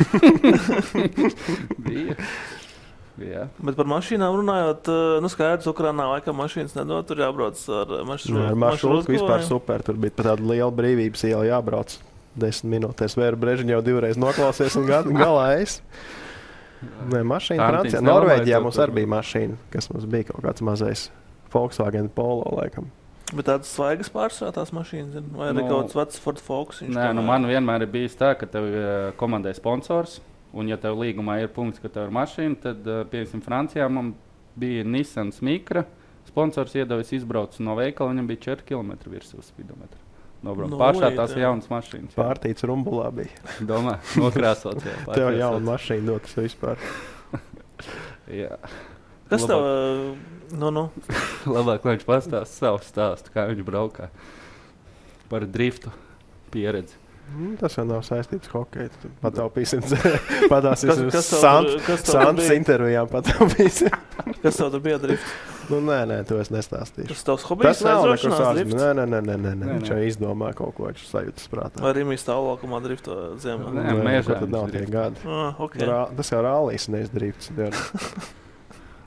Bija. Bet par mašīnām runājot, skaidrs, Ukrainā laikam mašīnas nedod, tur jābrauc ar maršrutku. Vispār super, tur bija pat tāda liela brīvības iela jābrauc 10 minūtēs. Vēru Brežiņu jau 2 reizes noklausies un galā es. Mašīna Francijā. Norvēģijā mums arī bija mašīna, kas mums bija kaut kāds mazais Volkswagen Polo laikam. Bet tādas svaigas pārsvarā tās mašīnas, vai arī kaut kāds vecs Ford Focus? Man vienmēr ir bijis tā, ka tev komandai sponsors, un ja tev līgumā ir punkts, ka tev ir mašīna, tad, piemēram, Francijā man bija Nissan Micra, sponsors iedevis izbraucu no veikala, viņam bija 4 km virsū spidometra. Pāršā tās jaunas mašīnas. Pārtīts rumbulā bija. Domā, nokrāsot. Tev jauna mašīna dotas vispār. Jā. Kas tev... Labāk, lai viņš pastāst savu stāstu, kā viņš braukā par driftu pieredzi. Tas jau nav saistīts hokeju. Pataupīsim Santas intervijām pataupīsim. Kas tev tur bija drift? Nē, to es nestāstīšu. Tas tavs hobijs aizrošanās drift? Nē. Viņš jau izdomā kaut ko, viņš sajūtas prātā. Vai Rimī stāvlākumā drifto ziemā? Nē, mēžā. Tad nav tie gadi. Okay. Tas jau rālīs, nevis drifts.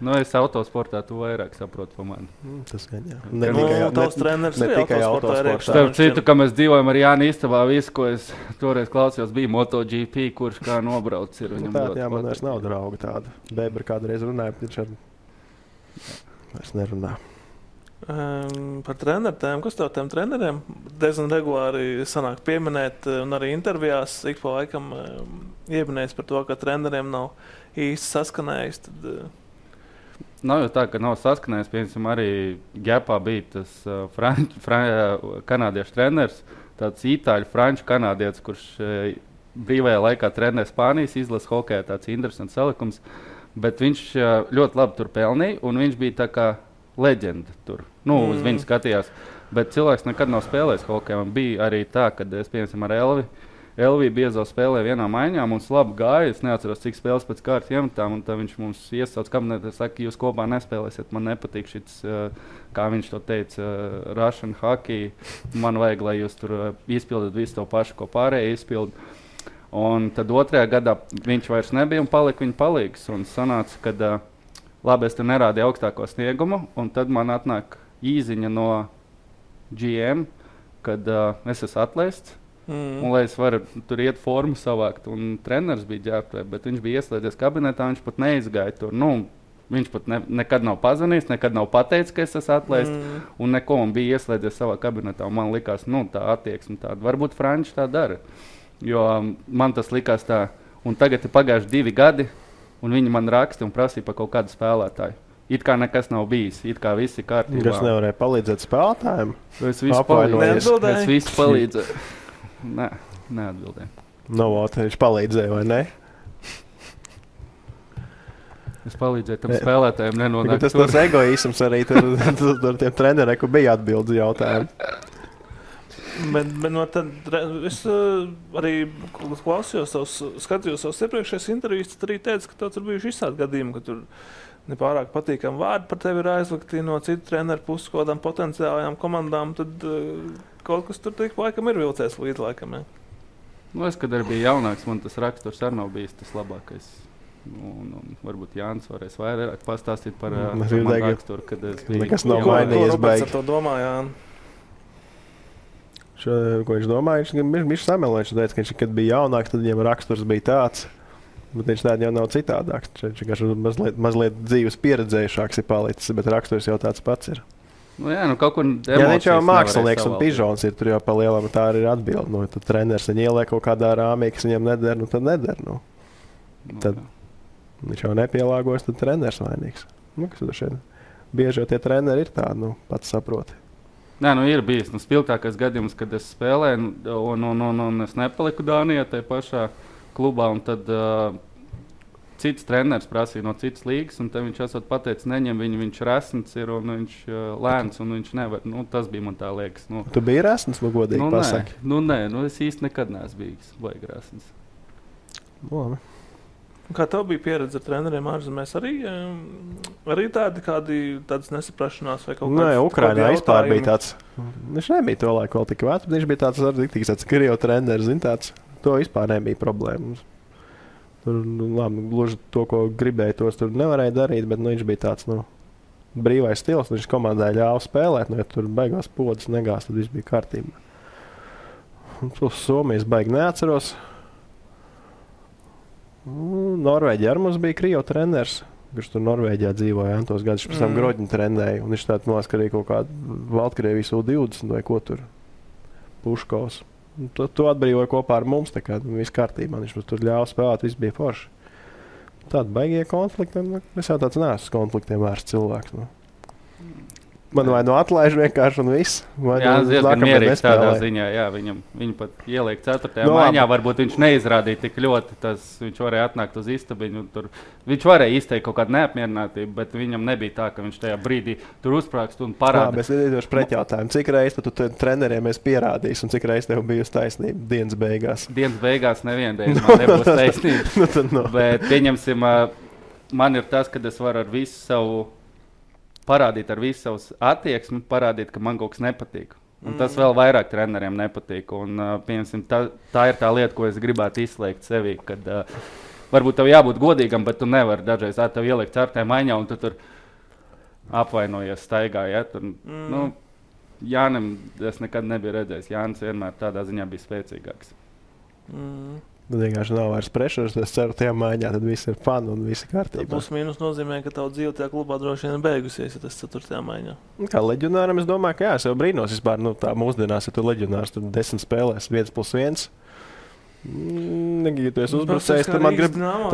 Es autosportā tu vairāk saprotu pa mani. Tas gan jā. Tavs treneris ne tikai autosportā. Starp citu, ka mēs dzīvojam ar Jāni istabā, visu, ko es toreiz klausījos, bija MotoGP, kurš kā nobrauc ir. Jā, man vairs nav drauga tāda. Bebra kādreiz runāja, bet viņš vairs nerunā. Par treneriem, kas tev tiem treneriem diezgan regulāri sanāk pieminēt un arī intervijās ik pa laikam ieminēs par to, ka treneriem nav īsti saskanējis, tad... Nav jau tā, ka nav saskanējis. Piemēram, arī Gēpā bija tas kanādiešu treneris, tāds itāļu-franču kanādietis, kurš brīvajā laikā trenē Spānijas izlases hokejā, tāds interesants salikums, bet viņš ļoti labi tur pelnīja, un viņš bija tā kā leģenda tur. Uz viņu skatījās, bet cilvēks nekad nav spēlējis hokejā. Man bija arī tā, kad es, piemēram, ar Elviju Biezo spēlēja vienā maiņā, mums labi gāja, es neatceros, cik spēles pēc kārtas iemetām, un tad viņš mums iesauc kabinetā, saka, jūs kopā nespēlēsiet, man nepatīk šits, kā viņš to teica, Russian hockey, man vajag, lai jūs tur izpildat visu to pašu, ko pārējie izpild. Un tad 2. gadā viņš vairs nebija un palika viņa palīgs, un sanāca, kad labi, es tur nerādīju augstāko sniegumu, un tad man atnāk īziņa no GM, kad es esmu atlaists, un lai es varu tur iet formu savākt, un treneris bija ģērbtuvē, bet viņš bija ieslēdzies kabinetā, viņš pat neizgāja tur, viņš pat nekad nav pazvanījis, nekad nav pateicis, ka es esmu atlaists, un neko man bija ieslēdzies savā kabinetā, un man likās, tā attieksme tāda, varbūt Franči tā dara, jo man tas likās tā, un tagad ir pagājuši 2 gadi, un viņi man raksta un prasīja par kaut kādu spēlētāju. It kā nekas nav bijis, it kā viss ir kārtībā. Kas nevarēja palīdzēt spēlētājiem? Es visu palīdzēju. Nē, neatbildēju. Viņš palīdzēja, vai ne? Es palīdzēju tam spēlētājiem nenonākt. Tas egoisms arī tur tiem treneriem, kur bija atbildes jautājumi. Bet no tad es arī klausījos, skatījos savus iepriekšējos intervijas, tad arī teicu, ka tur bijuši izsādi gadījumi, ka tur nepārāk patīkami vārdi par tevi ir aizlikti no citu treneru puses, kaut kādām potenciālajām komandām, tad kaut kas tur tik laikam ir vilcējis līdz laikam. Ja? Es, kad arī biju jaunāks, man tas raksturs arī nav bijis tas labākais. Un varbūt Jānis varēs vairāk pastāstīt par manu raksturu, kad es biju. Nekas nav mainījies. Ko Roberts ar to domā, Jāni? Ko viņš domāja? Viņš samelo, viņš teica, ka viņš, kad bija jaunāks, tad viņam raksturs bija tāds. Bet viņš tādā jau nav citādāks. Viņš vienkārši mazliet dzīves pieredzējušāks ir palicis, bet raksturs jau tāds pats ir. Kaut kur viņš jau mākslinieks un pižons ir, tur jau pa lielam tā arī ir atbildi. Tad treneris viņu ieliek kaut kādā rāmī, kas viņam neder, tad neder. Tad viņš jau nepielāgojas, tad treneris vainīgs. Kas tur šeit? Bieži jau tie treneri ir tādi, pats saproti. Ir bijis spilgtākais gadījums, kad es spēlēju, un es nepaliku Dānijā tajā pašā klubā, un tad cits treneris prasīja no citas līgas, un tad viņš esot pateicis, neņem viņu, viņš resns ir, un viņš lēns, un viņš nevar. Tas bija man tā liekas. Tu biji resns, godīgi pasaki? Nē, es īsti nekad neesmu bijis baigi resns. Kā tev bija pieredze ar treneriem ārzemēs? Arī tādas nesaprašanās vai kaut kādas? Nē, Ukrainā vispār bija tāds. Viņš nebija to laiku vēl tik vecs, bet viņš bija tāds arī tāds Krievijas treneris, tāds. To vispār nebija problēmas. Tur, labi, gluži to, ko gribēja, tos tur nevarēja darīt, bet viņš bija tāds, brīvais stils. Viņš komandai ļāva spēlēt, ja tur beigās podas negās, tad viss bija kārtībā. Somijas baigi neatceros. Norvēģijā ar mums bija Krievijas treneris, kurš tur Norvēģijā dzīvoja, tos gadus pēc tam Groģiņu trenēja, un viņš tāds noskarīja kaut kādu Baltkrievijas U20 vai ko tur, Puškovs. To atbrīvoja kopā ar mums, tā kā viss kārtībā, viņš mums tur ļāva spēlēt, viss bija forši. Tādi baigie konflikti, es jau tāds neesmu konfliktiem vērsts cilvēks. Man vai atlaiž vienkārši un viss. Jā, diezgan mierīgs tādā ziņā. Jā, viņu pat ieliek 4. maiņā. Varbūt viņš neizrādīja tik ļoti. Viņš varēja atnākt uz istabiņu. Viņš varēja izteikt kaut kādu neapmierinātību, bet viņam nebija tā, ka viņš tajā brīdī tur uzsprāgst un parāda. Labi, es iedošu pretjautājumu. Cik reizes tu treneriem esi pierādījis un cik reizes tev bijusi taisnība dienas beigās? Dienas beigās nevienreiz man nebūs taisnība. Bet pieņemsim, man ir tas, kad es varu ar visu savu parādīt ar visu savus attieksmi, parādīt, ka man kaut kas nepatīk. Un tas vēl vairāk treneriem nepatīk. Un, piemēram, tā ir tā lieta, ko es gribētu izslēgt sevī, kad varbūt tev jābūt godīgam, bet tu nevari dažreiz tev ielikt 4. maiņā, un tu tur apvainojies staigā. Ja? Jānim es nekad nebiju redzējis. Jānis vienmēr tādā ziņā bija spēcīgāks. Tad vienkārši nav vairs pressures, es ceru, tajā maiņā tad viss ir fun un viss ir kārtībā. Plus mīnus nozīmē, ka tavu dzīve tajā klubā droši vien beigusies, ja tas 4. maiņā. Kā leģionāram, es domāju, ka jā, es jau brīnos vispār, tā mūsdienās, ja tu leģionārs, tad 10 spēlēs 1+1. Ja tu esi uzbrucējis, tad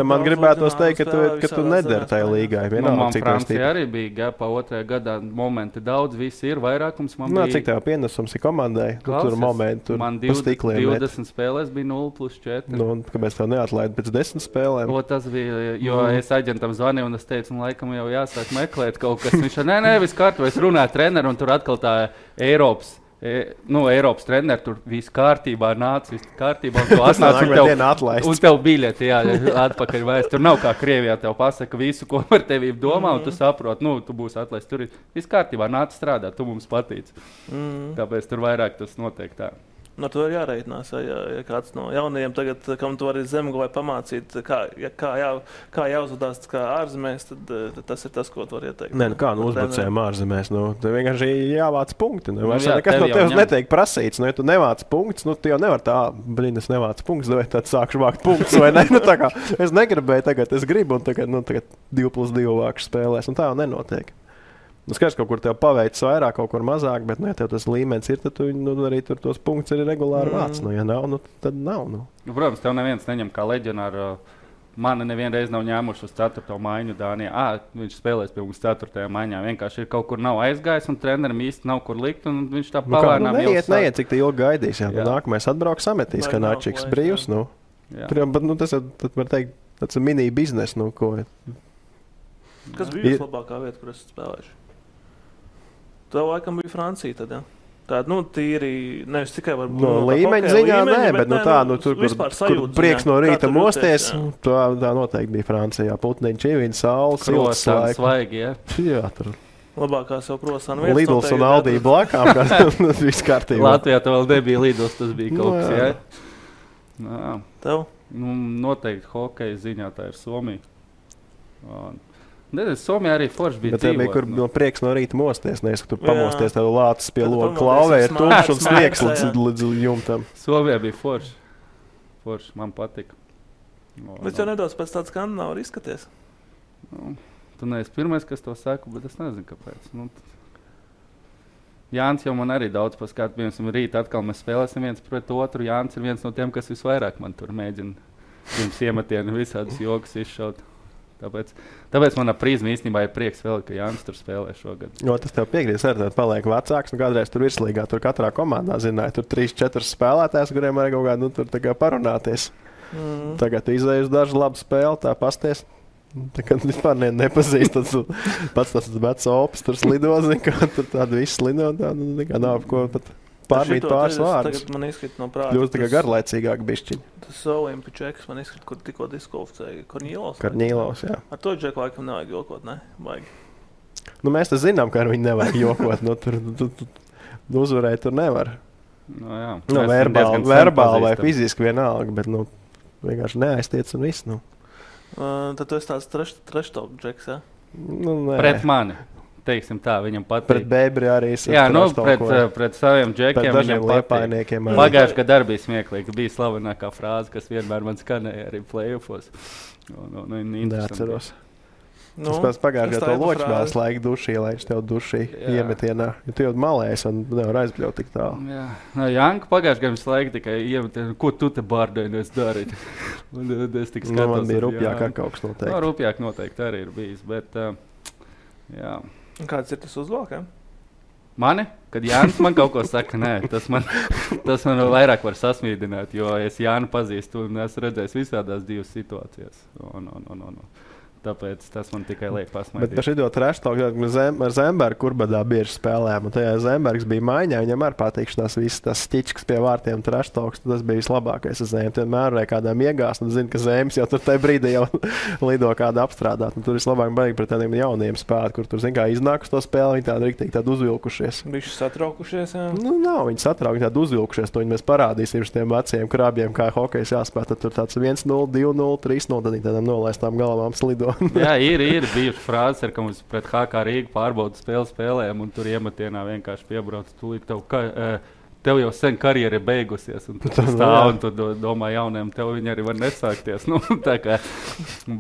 man gribētos teikt, ka tu nedari tajā līgā. Man Francija arī bija GPA 2. gadā momenti daudz, visi ir vairākums. Cik tev pienesums ir komandai? Tur momenti, man 20 spēlēs bija 0+4. Kāpēc tev neatlaid pēc 10 spēlēm? Tas bija, jo es aģentam zvanīju un es teicu, laikam jau jāsāk meklēt kaut kas. Viņš nē, viss kārtībā, es runāju treneru un tur atkal tā Eiropas treneri, tur viss kārtībā nāca, viss kārtībā, un tu atnāc un tev biļeti, atpakaļ vairs. Tur nav kā Krievijā tev pasaka visu, ko par tevi domā, un tu saproti, tu būsi atlaists. Tur viss kārtībā, nāc strādāt, tu mums patīc. Tāpēc tur vairāk tas notiek tā. No to ir jāreitinās, ja kāds no jaunajiem tagad, kam tu vari zemgolē pamācīt, kā jāuzvedās kā ārzemēs, tad tas ir tas, ko tu vari ieteikt. Nē, kā uzbrucējiem ārzemēs, te vienkārši jāvāc punkti. Vairs nekas no tev tevis netiek prasīts, ja tu nevāc punktus, tu jau nevar tā, es nevāc punktus, vai tad sākšu vākt punktus, vai ne? Tā kā es negribēju tagad, es gribu, un tagad 2+2 vākšu spēlēs, un tā jau nenotiek. Skaidrs, kaut kur tev paveicis vairāk, kaut kur mazāk, bet, ja tev tas līmenis ir, tad tu arī tur tos punktus ir regulāri vāc. Ja nav, tad nav. Protams, tev neviens neņem kā leģionāru. Mani nevienreiz nav ņēmuši uz 4. maiņu Dānijā. Viņš spēlēs pie mums 4. maiņā. Vienkārši ir kaut kur nav aizgājis, un trenerim īsti nav kur likt, un viņš tā pavērnām neiet, cik te ilgi gaidīs. Nākamais atbrauks sametīs, ka Načiks brīvs. Tas var teikt, tāds mini biznes. Kas bija vislabākā vieta, kur esat spēlējuši? Tev laikam bija Francija tad, ja? Tāda, tīri, nevis tikai varbūt... No līmeņa ziņā, bet tur, kur prieks no rīta mosties, tā noteikti bija Francijā. Putniņš, Čivīns, saules, silts laiks. Svaigi, ja? Jā, tur... Labākās jau krosāna vietas. Lidls un Aldi blakām, kas viss kārtībā. Latvijā tev vēl nebija Lidls, tas bija kaut kas, ja? Tev? Noteikti hokeja ziņā tā ir Somija. Somijā arī forši bija dzīvot. Bet tev bija prieks no rīta mosties, nevis, ka tu pamosties, tev lācis pie loga klauvē ir tumšs un sniegs līdz jumtam. Somijā bija forši. Forši, man patika. Bet jau nedaudz pēc tāds skandināvu arī izskaties. Tu neesi pirmais, kas to saka, bet es nezinu, kāpēc. Jānis jau man arī daudz paskat. Piemēram, rīt atkal mēs spēlēsim viens pret otru. Jānis ir viens no tiem, kas visvairāk man tur mēģina pirms iemetienu visādus jokus izšaut. Tāpēc manā prizmā īstenībā ir prieks vēl, ka Jānis tur spēlē šogad. Tas tev piekrīt, ka paliek vecāks. Kādreiz tur virslīgā, tur katrā komandā zināja, tur 3-4 spēlētājs, kuriem arī kaut kādā tur parunāties. Tagad izēj uz dažu labu spēli, tā pasties. Tagad vispār nepazīst. Pats tas vecs opis tur slido, ka tur tādu visu slido. Tā nav ko pat pārmīt pāris vārdus. Tagad man izskrit no prāta. Kļūst tikai garlaicīgāk bišķiņi. Tas Olimpičeks man izskrit, kur tikko diskvalificēja Korņīlovs. Korņīlovs, jā. Ar to džeku laikam nevajag jokot, ne? Vajag. Mēs tas zinām, ka ar viņu nevajag jokot. Tur uzvarēt tur nevar. Verbāli vai fiziski vienalga, bet vienkārši neaiztiec un viss. Tad tu esi tāds trash-talk džeks, ja? Pret mani. Teiksim tā, viņam patīk. Pret Bēbri arī es. Jā, pret saviem džekiem viņam patīk. Pagājuši, kad arī bija smieklīgi. Bija slavenākā frāze, kas vienmēr man skanēja arī play-offos. Atceros. Tas pēc pagājušajā to ločmēs laika dušī, lai viņš tev dušī iemetienā. Jo tu jau malēs un nevar aizbļaut tik tālu. Jā. Janka pagājušajā gadā laika tikai iemetienā, ko tu te bārdēnies darīt. Es tik skatos. Man bija rupjāk kaut kas noteikti. Rupjāk noteikti arī ir bijis, bet jā. Kāds ir tas uzvalkam? Mani? Kad Jānis man kaut ko saka, nē, tas man vairāk var sasmīdināt, jo es Jānu pazīstu un esmu redzējis visādās divas situācijas. Tāpēc tas man tikai liek pasmaidīt. Bet par šito treštalku ar Zembergu kurbadā bieži spēlējām. Un tajā Zembergs bija maiņā, viņam ar patīkšanās viss tas stiķis pie vārtiem treštalks. Tas bija vislabākais uz Zēm. Vienmēr varēja kādām iegāst un zina, ka Zēms jau tur tajā brīdī jau lido kādu apstrādāt. Un tur vislabāk baigi pret tādiem jauniem spēlēt, kur tur, zin kā, iznāk uz to spēli, viņi tādi riktīgi tādi uzvilkušies. Bišķi satraukušies, jā? Nav viņi satraukuši, tādi uzvilkušies. To viņi mēs parādīsim šiem veciem krābjiem, kā hokejs jāspēlē. Tad tur tāds 1-0, 2-0, 3-0, tad viņi tādām nolaistām galvām slido. Jā, ir bijuši frāzes, ka mums pret HK Rīgu pārbaudas spēlēm, un tur iemetienā vienkārši piebrauc. Tev jau sen karjera ir beigusies, un tu stāv un tu domā jauniem, tev viņi arī var nesākties.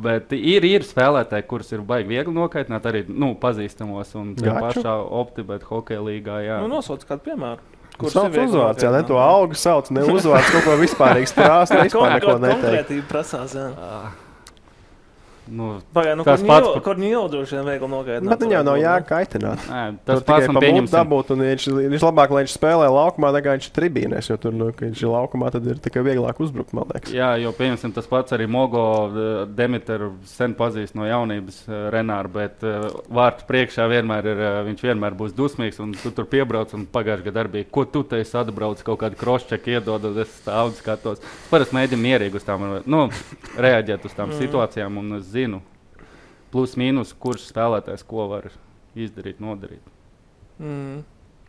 Bet ir spēlētāji, kurus ir baigi viegli nokaitināt, arī pazīstamos, un tajā pašā Optibet hokeja līgā. Jā. Nosauc kādu piemēru. Sauc uzvārds, jā, ne to algu sauc, ne uzvārds, kaut ko vispārīgi strāst, vispār neko neteikt. Konkrētība prasās, jā. Tas pats Korņīlovs droši vien viegli nogaitināt. Bet viņam nav jākaitināt. Tas pats man pieņems. Dabūt, un viņš labāk, lai viņš spēlē laukumā, nekā viņš ir tribīnēs, jo tur, ka viņš ir laukumā, tad ir tikai vieglāk uzbrukt, man liekas. Jā, jo pieņemsim tas pats arī Mogo Demiteru sen pazīst no jaunības Renāru, bet vārtu priekšā viņš vienmēr būs dusmīgs, un tu tur piebrauc, un pagājušajā gadā bija, ko tu te esi atbrauc, kaut kādu cross-check iedod, un es stāvu skatos. Parasti mēģinu mierīgi uz tām, reaģēt uz tām situācijām, un zinu, plus mīnus, kurš spēlētājs ko var izdarīt, nodarīt.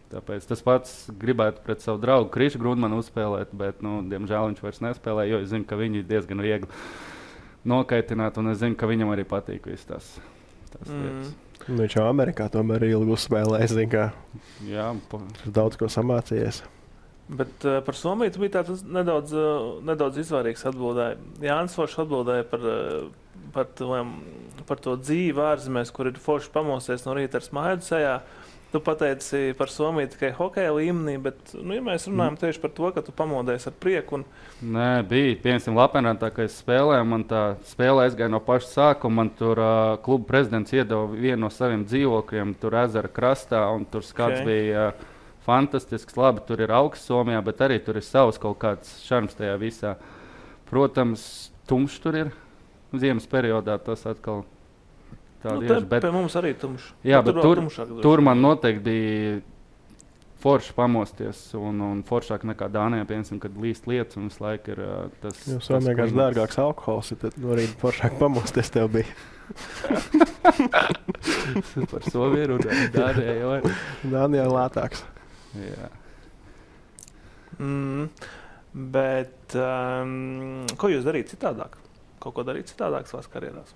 Tāpēc tas pats gribētu pret savu draugu Krišu Grūdmanu uzspēlēt, bet, diemžēl viņš vairs nespēlē, jo es zinu, ka viņi diezgan viegli nokaitināt, un es zinu, ka viņam arī patīk viss tās lietas. Viņš jau Amerikā tomēr ilgi uzspēlē, es zinu, ka daudz ko samācījies. Bet par Somiju tu bija tāds nedaudz izvairīgs atbildēja. Jānis Foršs atbildēja par to dzīvi ārzemēs, kur ir forši pamosties no rīta ar smaidu sejā. Tu pateici par Somiju tikai hokeja līmenī, bet, ja mēs runājam tieši par to, ka tu pamodies ar prieku. Nē, bija. Piemēram, Lapenrantā, kad es spēlēju, man tā spēle aizgāja no paša sākuma. Man tur kluba prezidents iedeva vienu no saviem dzīvokļiem, tur ezera krastā, un tur skats bija fantastisks. Labi, tur ir augsts Somijā, bet arī tur ir savs kaut kāds šarms tajā visā. Protams, tumšs tur ir. Ziemas periodā tas atkal bet pie mums arī tumšs. Jā, bet tur man noteikti bija forši pamosties un foršāk nekā Dānijā, piemēram, kad līst lietas un visu laiku ir tas. Jo vienkārši dārgāks alkohols, tad no rīta foršāk pamosties tev bija. Par Somiju runāju. Dānijā jau ir. Dānijā lētāks. Jā. Bet ko jūs darīt citādāk? Kaut ko darīt citādāk savās karjerās?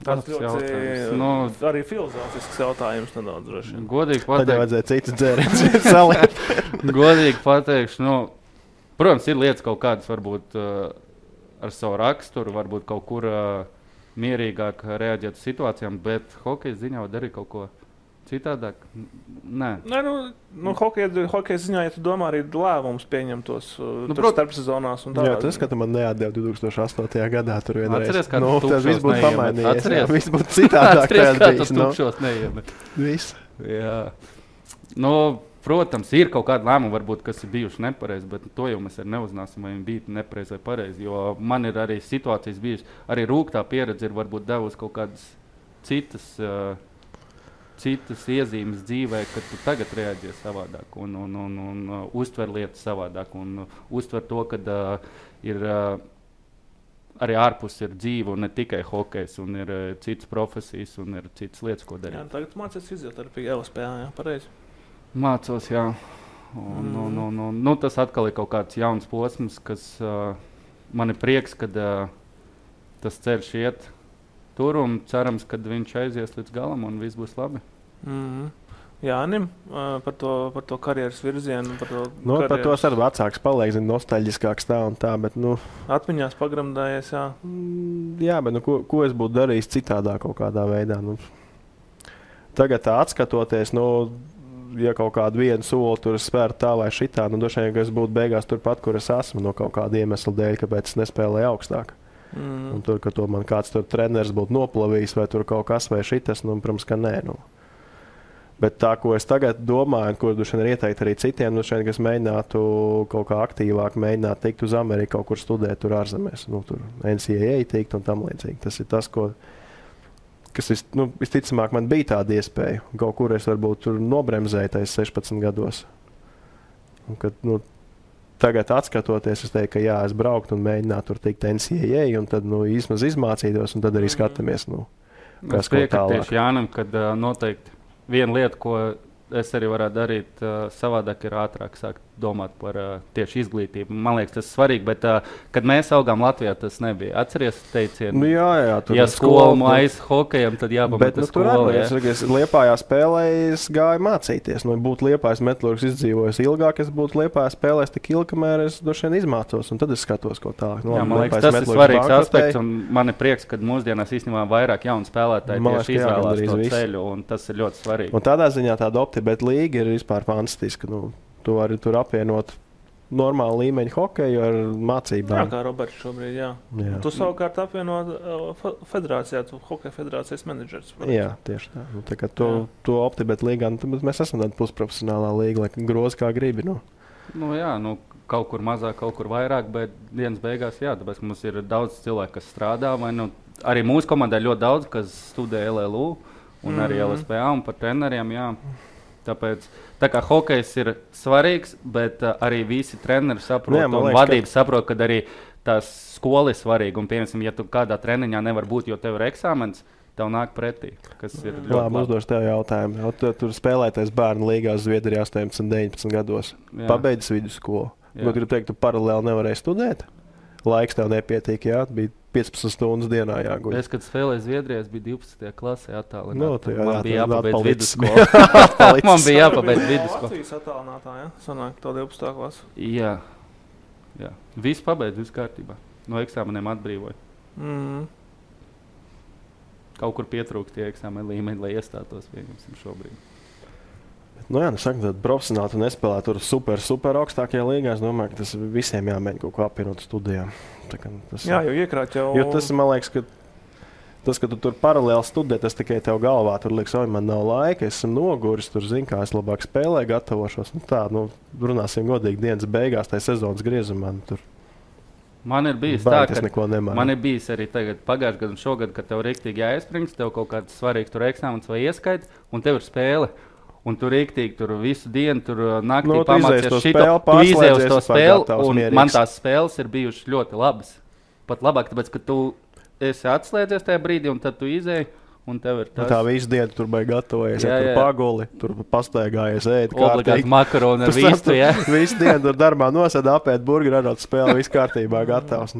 Tas ļoti arī filozofisks jautājums nedaudz droši. Godīgi pateikt. Tad jau vajadzēja citas dzēriens saliet. Godīgi pateikšu, protams, ir lietas kaut kādas varbūt ar savu raksturu, varbūt kaut kur mierīgāk reaģēt uz situācijām, bet hokeja ziņā var darīt kaut ko citādāk? Nē. Hokeja ziņā, ja tu domā arī lēmumus pieņemtos starpsezonās un tādā. Jā, tas, ka tu man neatdeva 2008. gadā tur vienreiz. Atceries, kā tas viss būtu pamainījies. Atceries, viss būtu citādāk. Atceries, kā tas tukšos neiemet. Viss. Jā. Protams, ir kaut kādi lēmumi, varbūt, kas ir bijuši nepareizi, bet to jau mēs arī neuzzināsim, vai viņi bija nepareizi vai pareizi. Jo man ir arī situācijas bijušas, arī rūgtā pieredze ir varbūt devusi kaut kādas citas iezīmes dzīvē, kad tu tagad reaģē savādāk un uztver lietas savādāk un uztver to, ka ir arī ārpus ir dzīve un ne tikai hokejs un ir citas profesijas un ir citas lietas, ko darīt. Jā, tagad mācies fizioterapiju LSPā, jā, pareizi? Mācos, jā. Tas atkal ir kaut kāds jauns posms, kas man ir prieks, kad tas ceļš iet tur un cerams, ka viņš aizies līdz galam un viss būs labi. Jānim, par to karjeras virzienu. Par to arī vecāks paliek, nostalģiskāks tā un tā, bet, atmiņās pagramdājies, jā. Jā, bet, ko es būtu darījis citādā kaut kādā veidā, Tagad tā atskatoties, ja kaut kādu vienu soli tur spērt tā vai šitā, droši vien, ka es būtu beigās turpat, kur es esmu, no kaut kāda iemesla dēļ, kāpēc es nespēlēju augstāk. Un tur, ka to man kāds tur treneris būtu noplavījis vai tur kaut kas vai šitas, protams, ka nē. Bet tā, ko es tagad domāju, ko droši vien ir ieteikt arī citiem, droši vien, ka es mēģinātu kaut kā aktīvāk mēģināt tikt uz Ameriku, kaut kur studēt tur ārzemēs, tur NCAA tikt un tam līdzīgi. Tas ir tas, kas visticamāk man bija tāda iespēja. Kaut kur es varbūt tur nobremzēju tais 16 gados. Un, kad, tagad atskatoties, es teiktu, ka jā, es brauktu un mēģinātu tur tikt NCAA un tad īsmaz izmācītos un tad arī skatāmies, kas ko tālāk. Tieši Jānam, kad noteikti viena lieta, ko es arī varētu darīt savādāk, ir ātrāk sākt domāt par tieši izglītību. Man liekas, tas ir svarīgi, bet kad mēs augām Latvijā, tas nebija. Atceries teicienu? Jā, tur ja skola mājas hokejam, tad jāpamata skola. Es Liepājā spēlēju, es gāju mācīties. Būtu Liepājas metalurgs izdzīvojis ilgāk, es būtu Liepājā spēlējis tik ilgi, kamēr es droši vien izmācos, un tad es skatos, ko tālāk. Man liekas, tas ir svarīgs aspekts, un man ir prieks, ka mūsdienās īstenībā vairāk jaunu spēlētāju tieši izvēlās to ceļu, un tas ir ļoti svarīgi. Un tādā ziņā tāda optibeta līga ir vispār fantastiska. Tu vari tur apvienot normālu līmeņu hokeju ar mācībām. Jā, kā Roberts šobrīd, jā. Tu savukārt apvienot federācijā, tu hokeja federācijas menedžers. Jā, tieši tā. Tā kā to optibeta līgā, mēs esam tāda pusprofesionālā līga, lai groz kā gribi. Kaut kur mazāk, kaut kur vairāk, bet dienas beigās, jā, tāpēc mums ir daudz cilvēku, kas strādā, vai arī mūsu komandai ļoti daudz, kas studē LLU un arī LSPA un par treneriem, jā. Tāpēc tā kā hokejs ir svarīgs, bet arī visi treneri saprot un vadības saprot, ka arī tās skola ir svarīga. Un, piemēram, ja tu kādā treniņā nevar būt, jo tev ir eksāmens, tev nāk pretī, kas ir ļoti labi. Uzdošu tev jautājumu. Tur spēlētais bērnu līgās Zviedrijā 18, 19 gados. Pabeidzis vidusskolu. Ko gribu teikt, tu paralēli nevarēji studēt? Laiks tev nepietiek, jā? Bija 15 stundas dienā jāguļ. Es, kad spēlēju Zviedrijā, es biju 12. klasē attālināti. Man bija jāpabeidz vidusskolu. Man bija jāpabeidz vidusskolu. Latvijas attālinātā, ja? Sanāk, to 12. klasu. Jā. Viss pabeidz, viss kārtībā. No eksāmeniem atbrīvoja. Kaut kur pietrūkst tie eksāmeni līmeņi, lai iestātos vienam šobrīd. Saka, tad profesionāli tu nespēlē tur super augstākajā līgā. Es domāju, ka tas visiem jāmēģina kaut ko apvienot studijām. Jā, jo iekrāt jau... Jo tas, man liekas, ka tu tur paralēli studē, tas tikai tev galvā. Tur liekas, man nav laika, esmu noguris, tur zinu, kā es labāk spēlēju, gatavošos. Runāsim godīgi dienas beigās, tai sezonas griezumā. Man ir bijis tā, ka man ir bijis arī tagad pagājušajā gadā un šogad, kad tev rīktīgi jāiesprings, tev kaut kāds svarīgs tur eksāmens vai ieskaits, un tev ir spēle. Un tur rīktīgi, tur visu dienu, tur naktī pamācies šito, tu izēji uz to spēli, un man tās spēles ir bijušas ļoti labas. Pat labāk, tāpēc, ka tu esi atslēdzies tajā brīdī, un tad tu izēji, un tev ir tas. Tā visu dienu tur bija gatavojies, tur paguli, tur pastaigājies, ēd obligāti makaroni ar vistu, jā. Visu dienu tur darbā nosēd, apēt burgeri, arot spēli, viss kārtībā gatavs.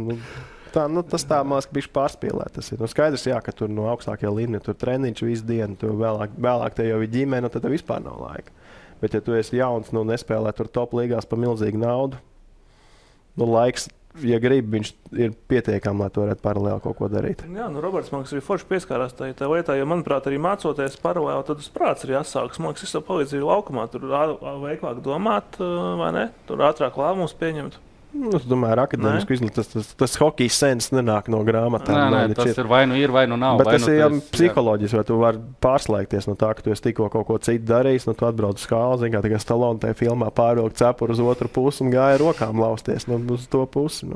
Tas tā māks bišķi pārspīlēt. Tas ir skaidrs, jā, ka tur no augstākajā līmenī tur treniņš visu dienu, tu vēlāk te jau ir ģimene, tad tev vispār nav laika. Bet ja tu esi jauns, nespēlē tur top līgās par milzīgu naudu, laiks, ja gribi, viņš ir pietiekami, lai tu varētu paralēli kaut ko darīt. Jā, Roberts, man liekas, arī forši pieskārās tā lietā, jo, manuprāt, arī mācoties paralēli, tad uz prāts ir jāsākas. Man liekas, es tev palīdzīju laukumā, tur veiklāk domāt, vai ne? Tur ātrāk lēmumus pieņemt. Es domāju, ar akadēmisku izglītību tas hokejs sens nenāk no grāmatām. Nē, tas ir vai nu ir, vai nu nav. Bet tas ir psiholoģiski, vai tu vari pārslēgties no tā, ka tu esi tikko kaut ko citu darījis, tu atbrauc uz skāli, zini, kā tikai Stallone tajā filmā pārvilkt cepuru uz otru pusi un gāja rokām lausties uz to pusi.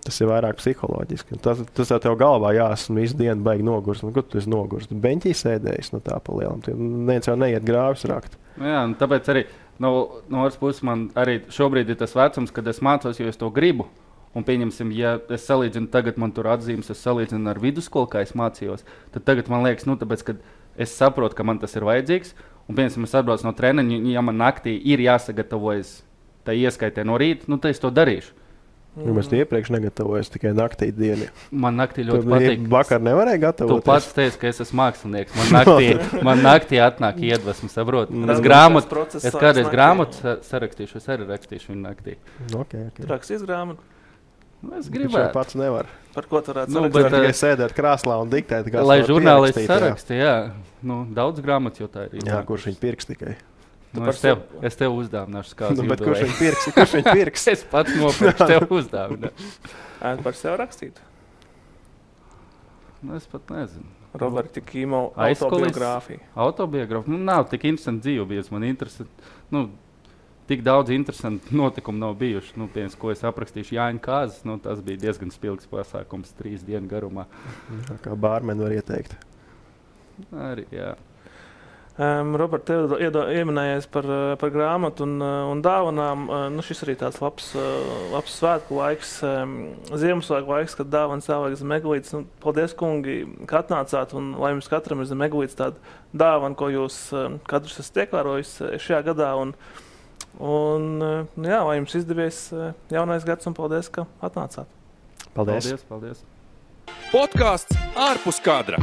Tas ir vairāk psiholoģiski. Tas tev galvā esmu visu dienu baigi nogurs. Ko tu esi nogurs? Tu beņķī sēdējis no tā pa lielam. Neviens jau neiet grāvis rakt. Jā, tāpēc arī no otras puses man arī šobrīd ir tas vecums, kad es mācos, jo es to gribu. Un pieņemsim, ja es salīdzinu tagad, man tur atzīmes, es salīdzinu ar vidusskolu, kā es mācījos, tad tagad man liekas, tāpēc, kad es saprotu, ka man tas ir vajadzīgs, un pieņemsim, es atbraucu no treniņa, ja man naktī ir jāsagatavojas tā ieskaitē no rīta, tad es to darīšu. Mēs iepriekš negatavojos tikai naktī dienu. Man naktī ļoti patīk. Vakar nevarēja gatavoties. Tu pats teici, ka es esmu mākslinieks. Man naktī atnāk iedvesmu, saprot. Es kādreiz grāmatu sarakstīšu, es arī rakstīšu viņu naktī. Okay. Rakstīs grāmatu? Es gribētu. Viņš pats nevar. Par ko tu varētu sarakstīt? Tikai sēdēt krāslā un diktēt. Lai žurnālisti saraksti, jā. Daudz grāmatas jau tā ir. Jā, kurš viņi pirks tikai. Es tev uzdāvināšu kādu. Bet kurš viņu pirks? Es pats nopirkšu, tev uzdāvināšu. Par sevi rakstīt? Es pat nezinu. Roberta Kīmo autobiogrāfija. Autobiogrāfija? Nav tik interesanti dzīve bijusi. Man interesanti, tik daudz interesanti notikumu nav bijuši. Piemēram, ko es aprakstīšu Jāņa Kāzas, tas bija diezgan spilgs pasākums 3 dienu garumā. Kā bārmeni var ieteikt. Arī, jā. Robert, tev ieminējies par grāmatu un dāvanām. Šis arī tāds labs svētku laiks, Ziemassvētku laiks, kad dāvanas jāvajag zem eglītes. Paldies, kungi, ka atnācāt, un lai jums katram ir zem eglītes tāda dāvana, ko jūs katrs esat ievērojis šajā gadā. Lai jums izdevies jaunais gads, un paldies, ka atnācāt. Paldies. Paldies. Podcasts ārpus kadra.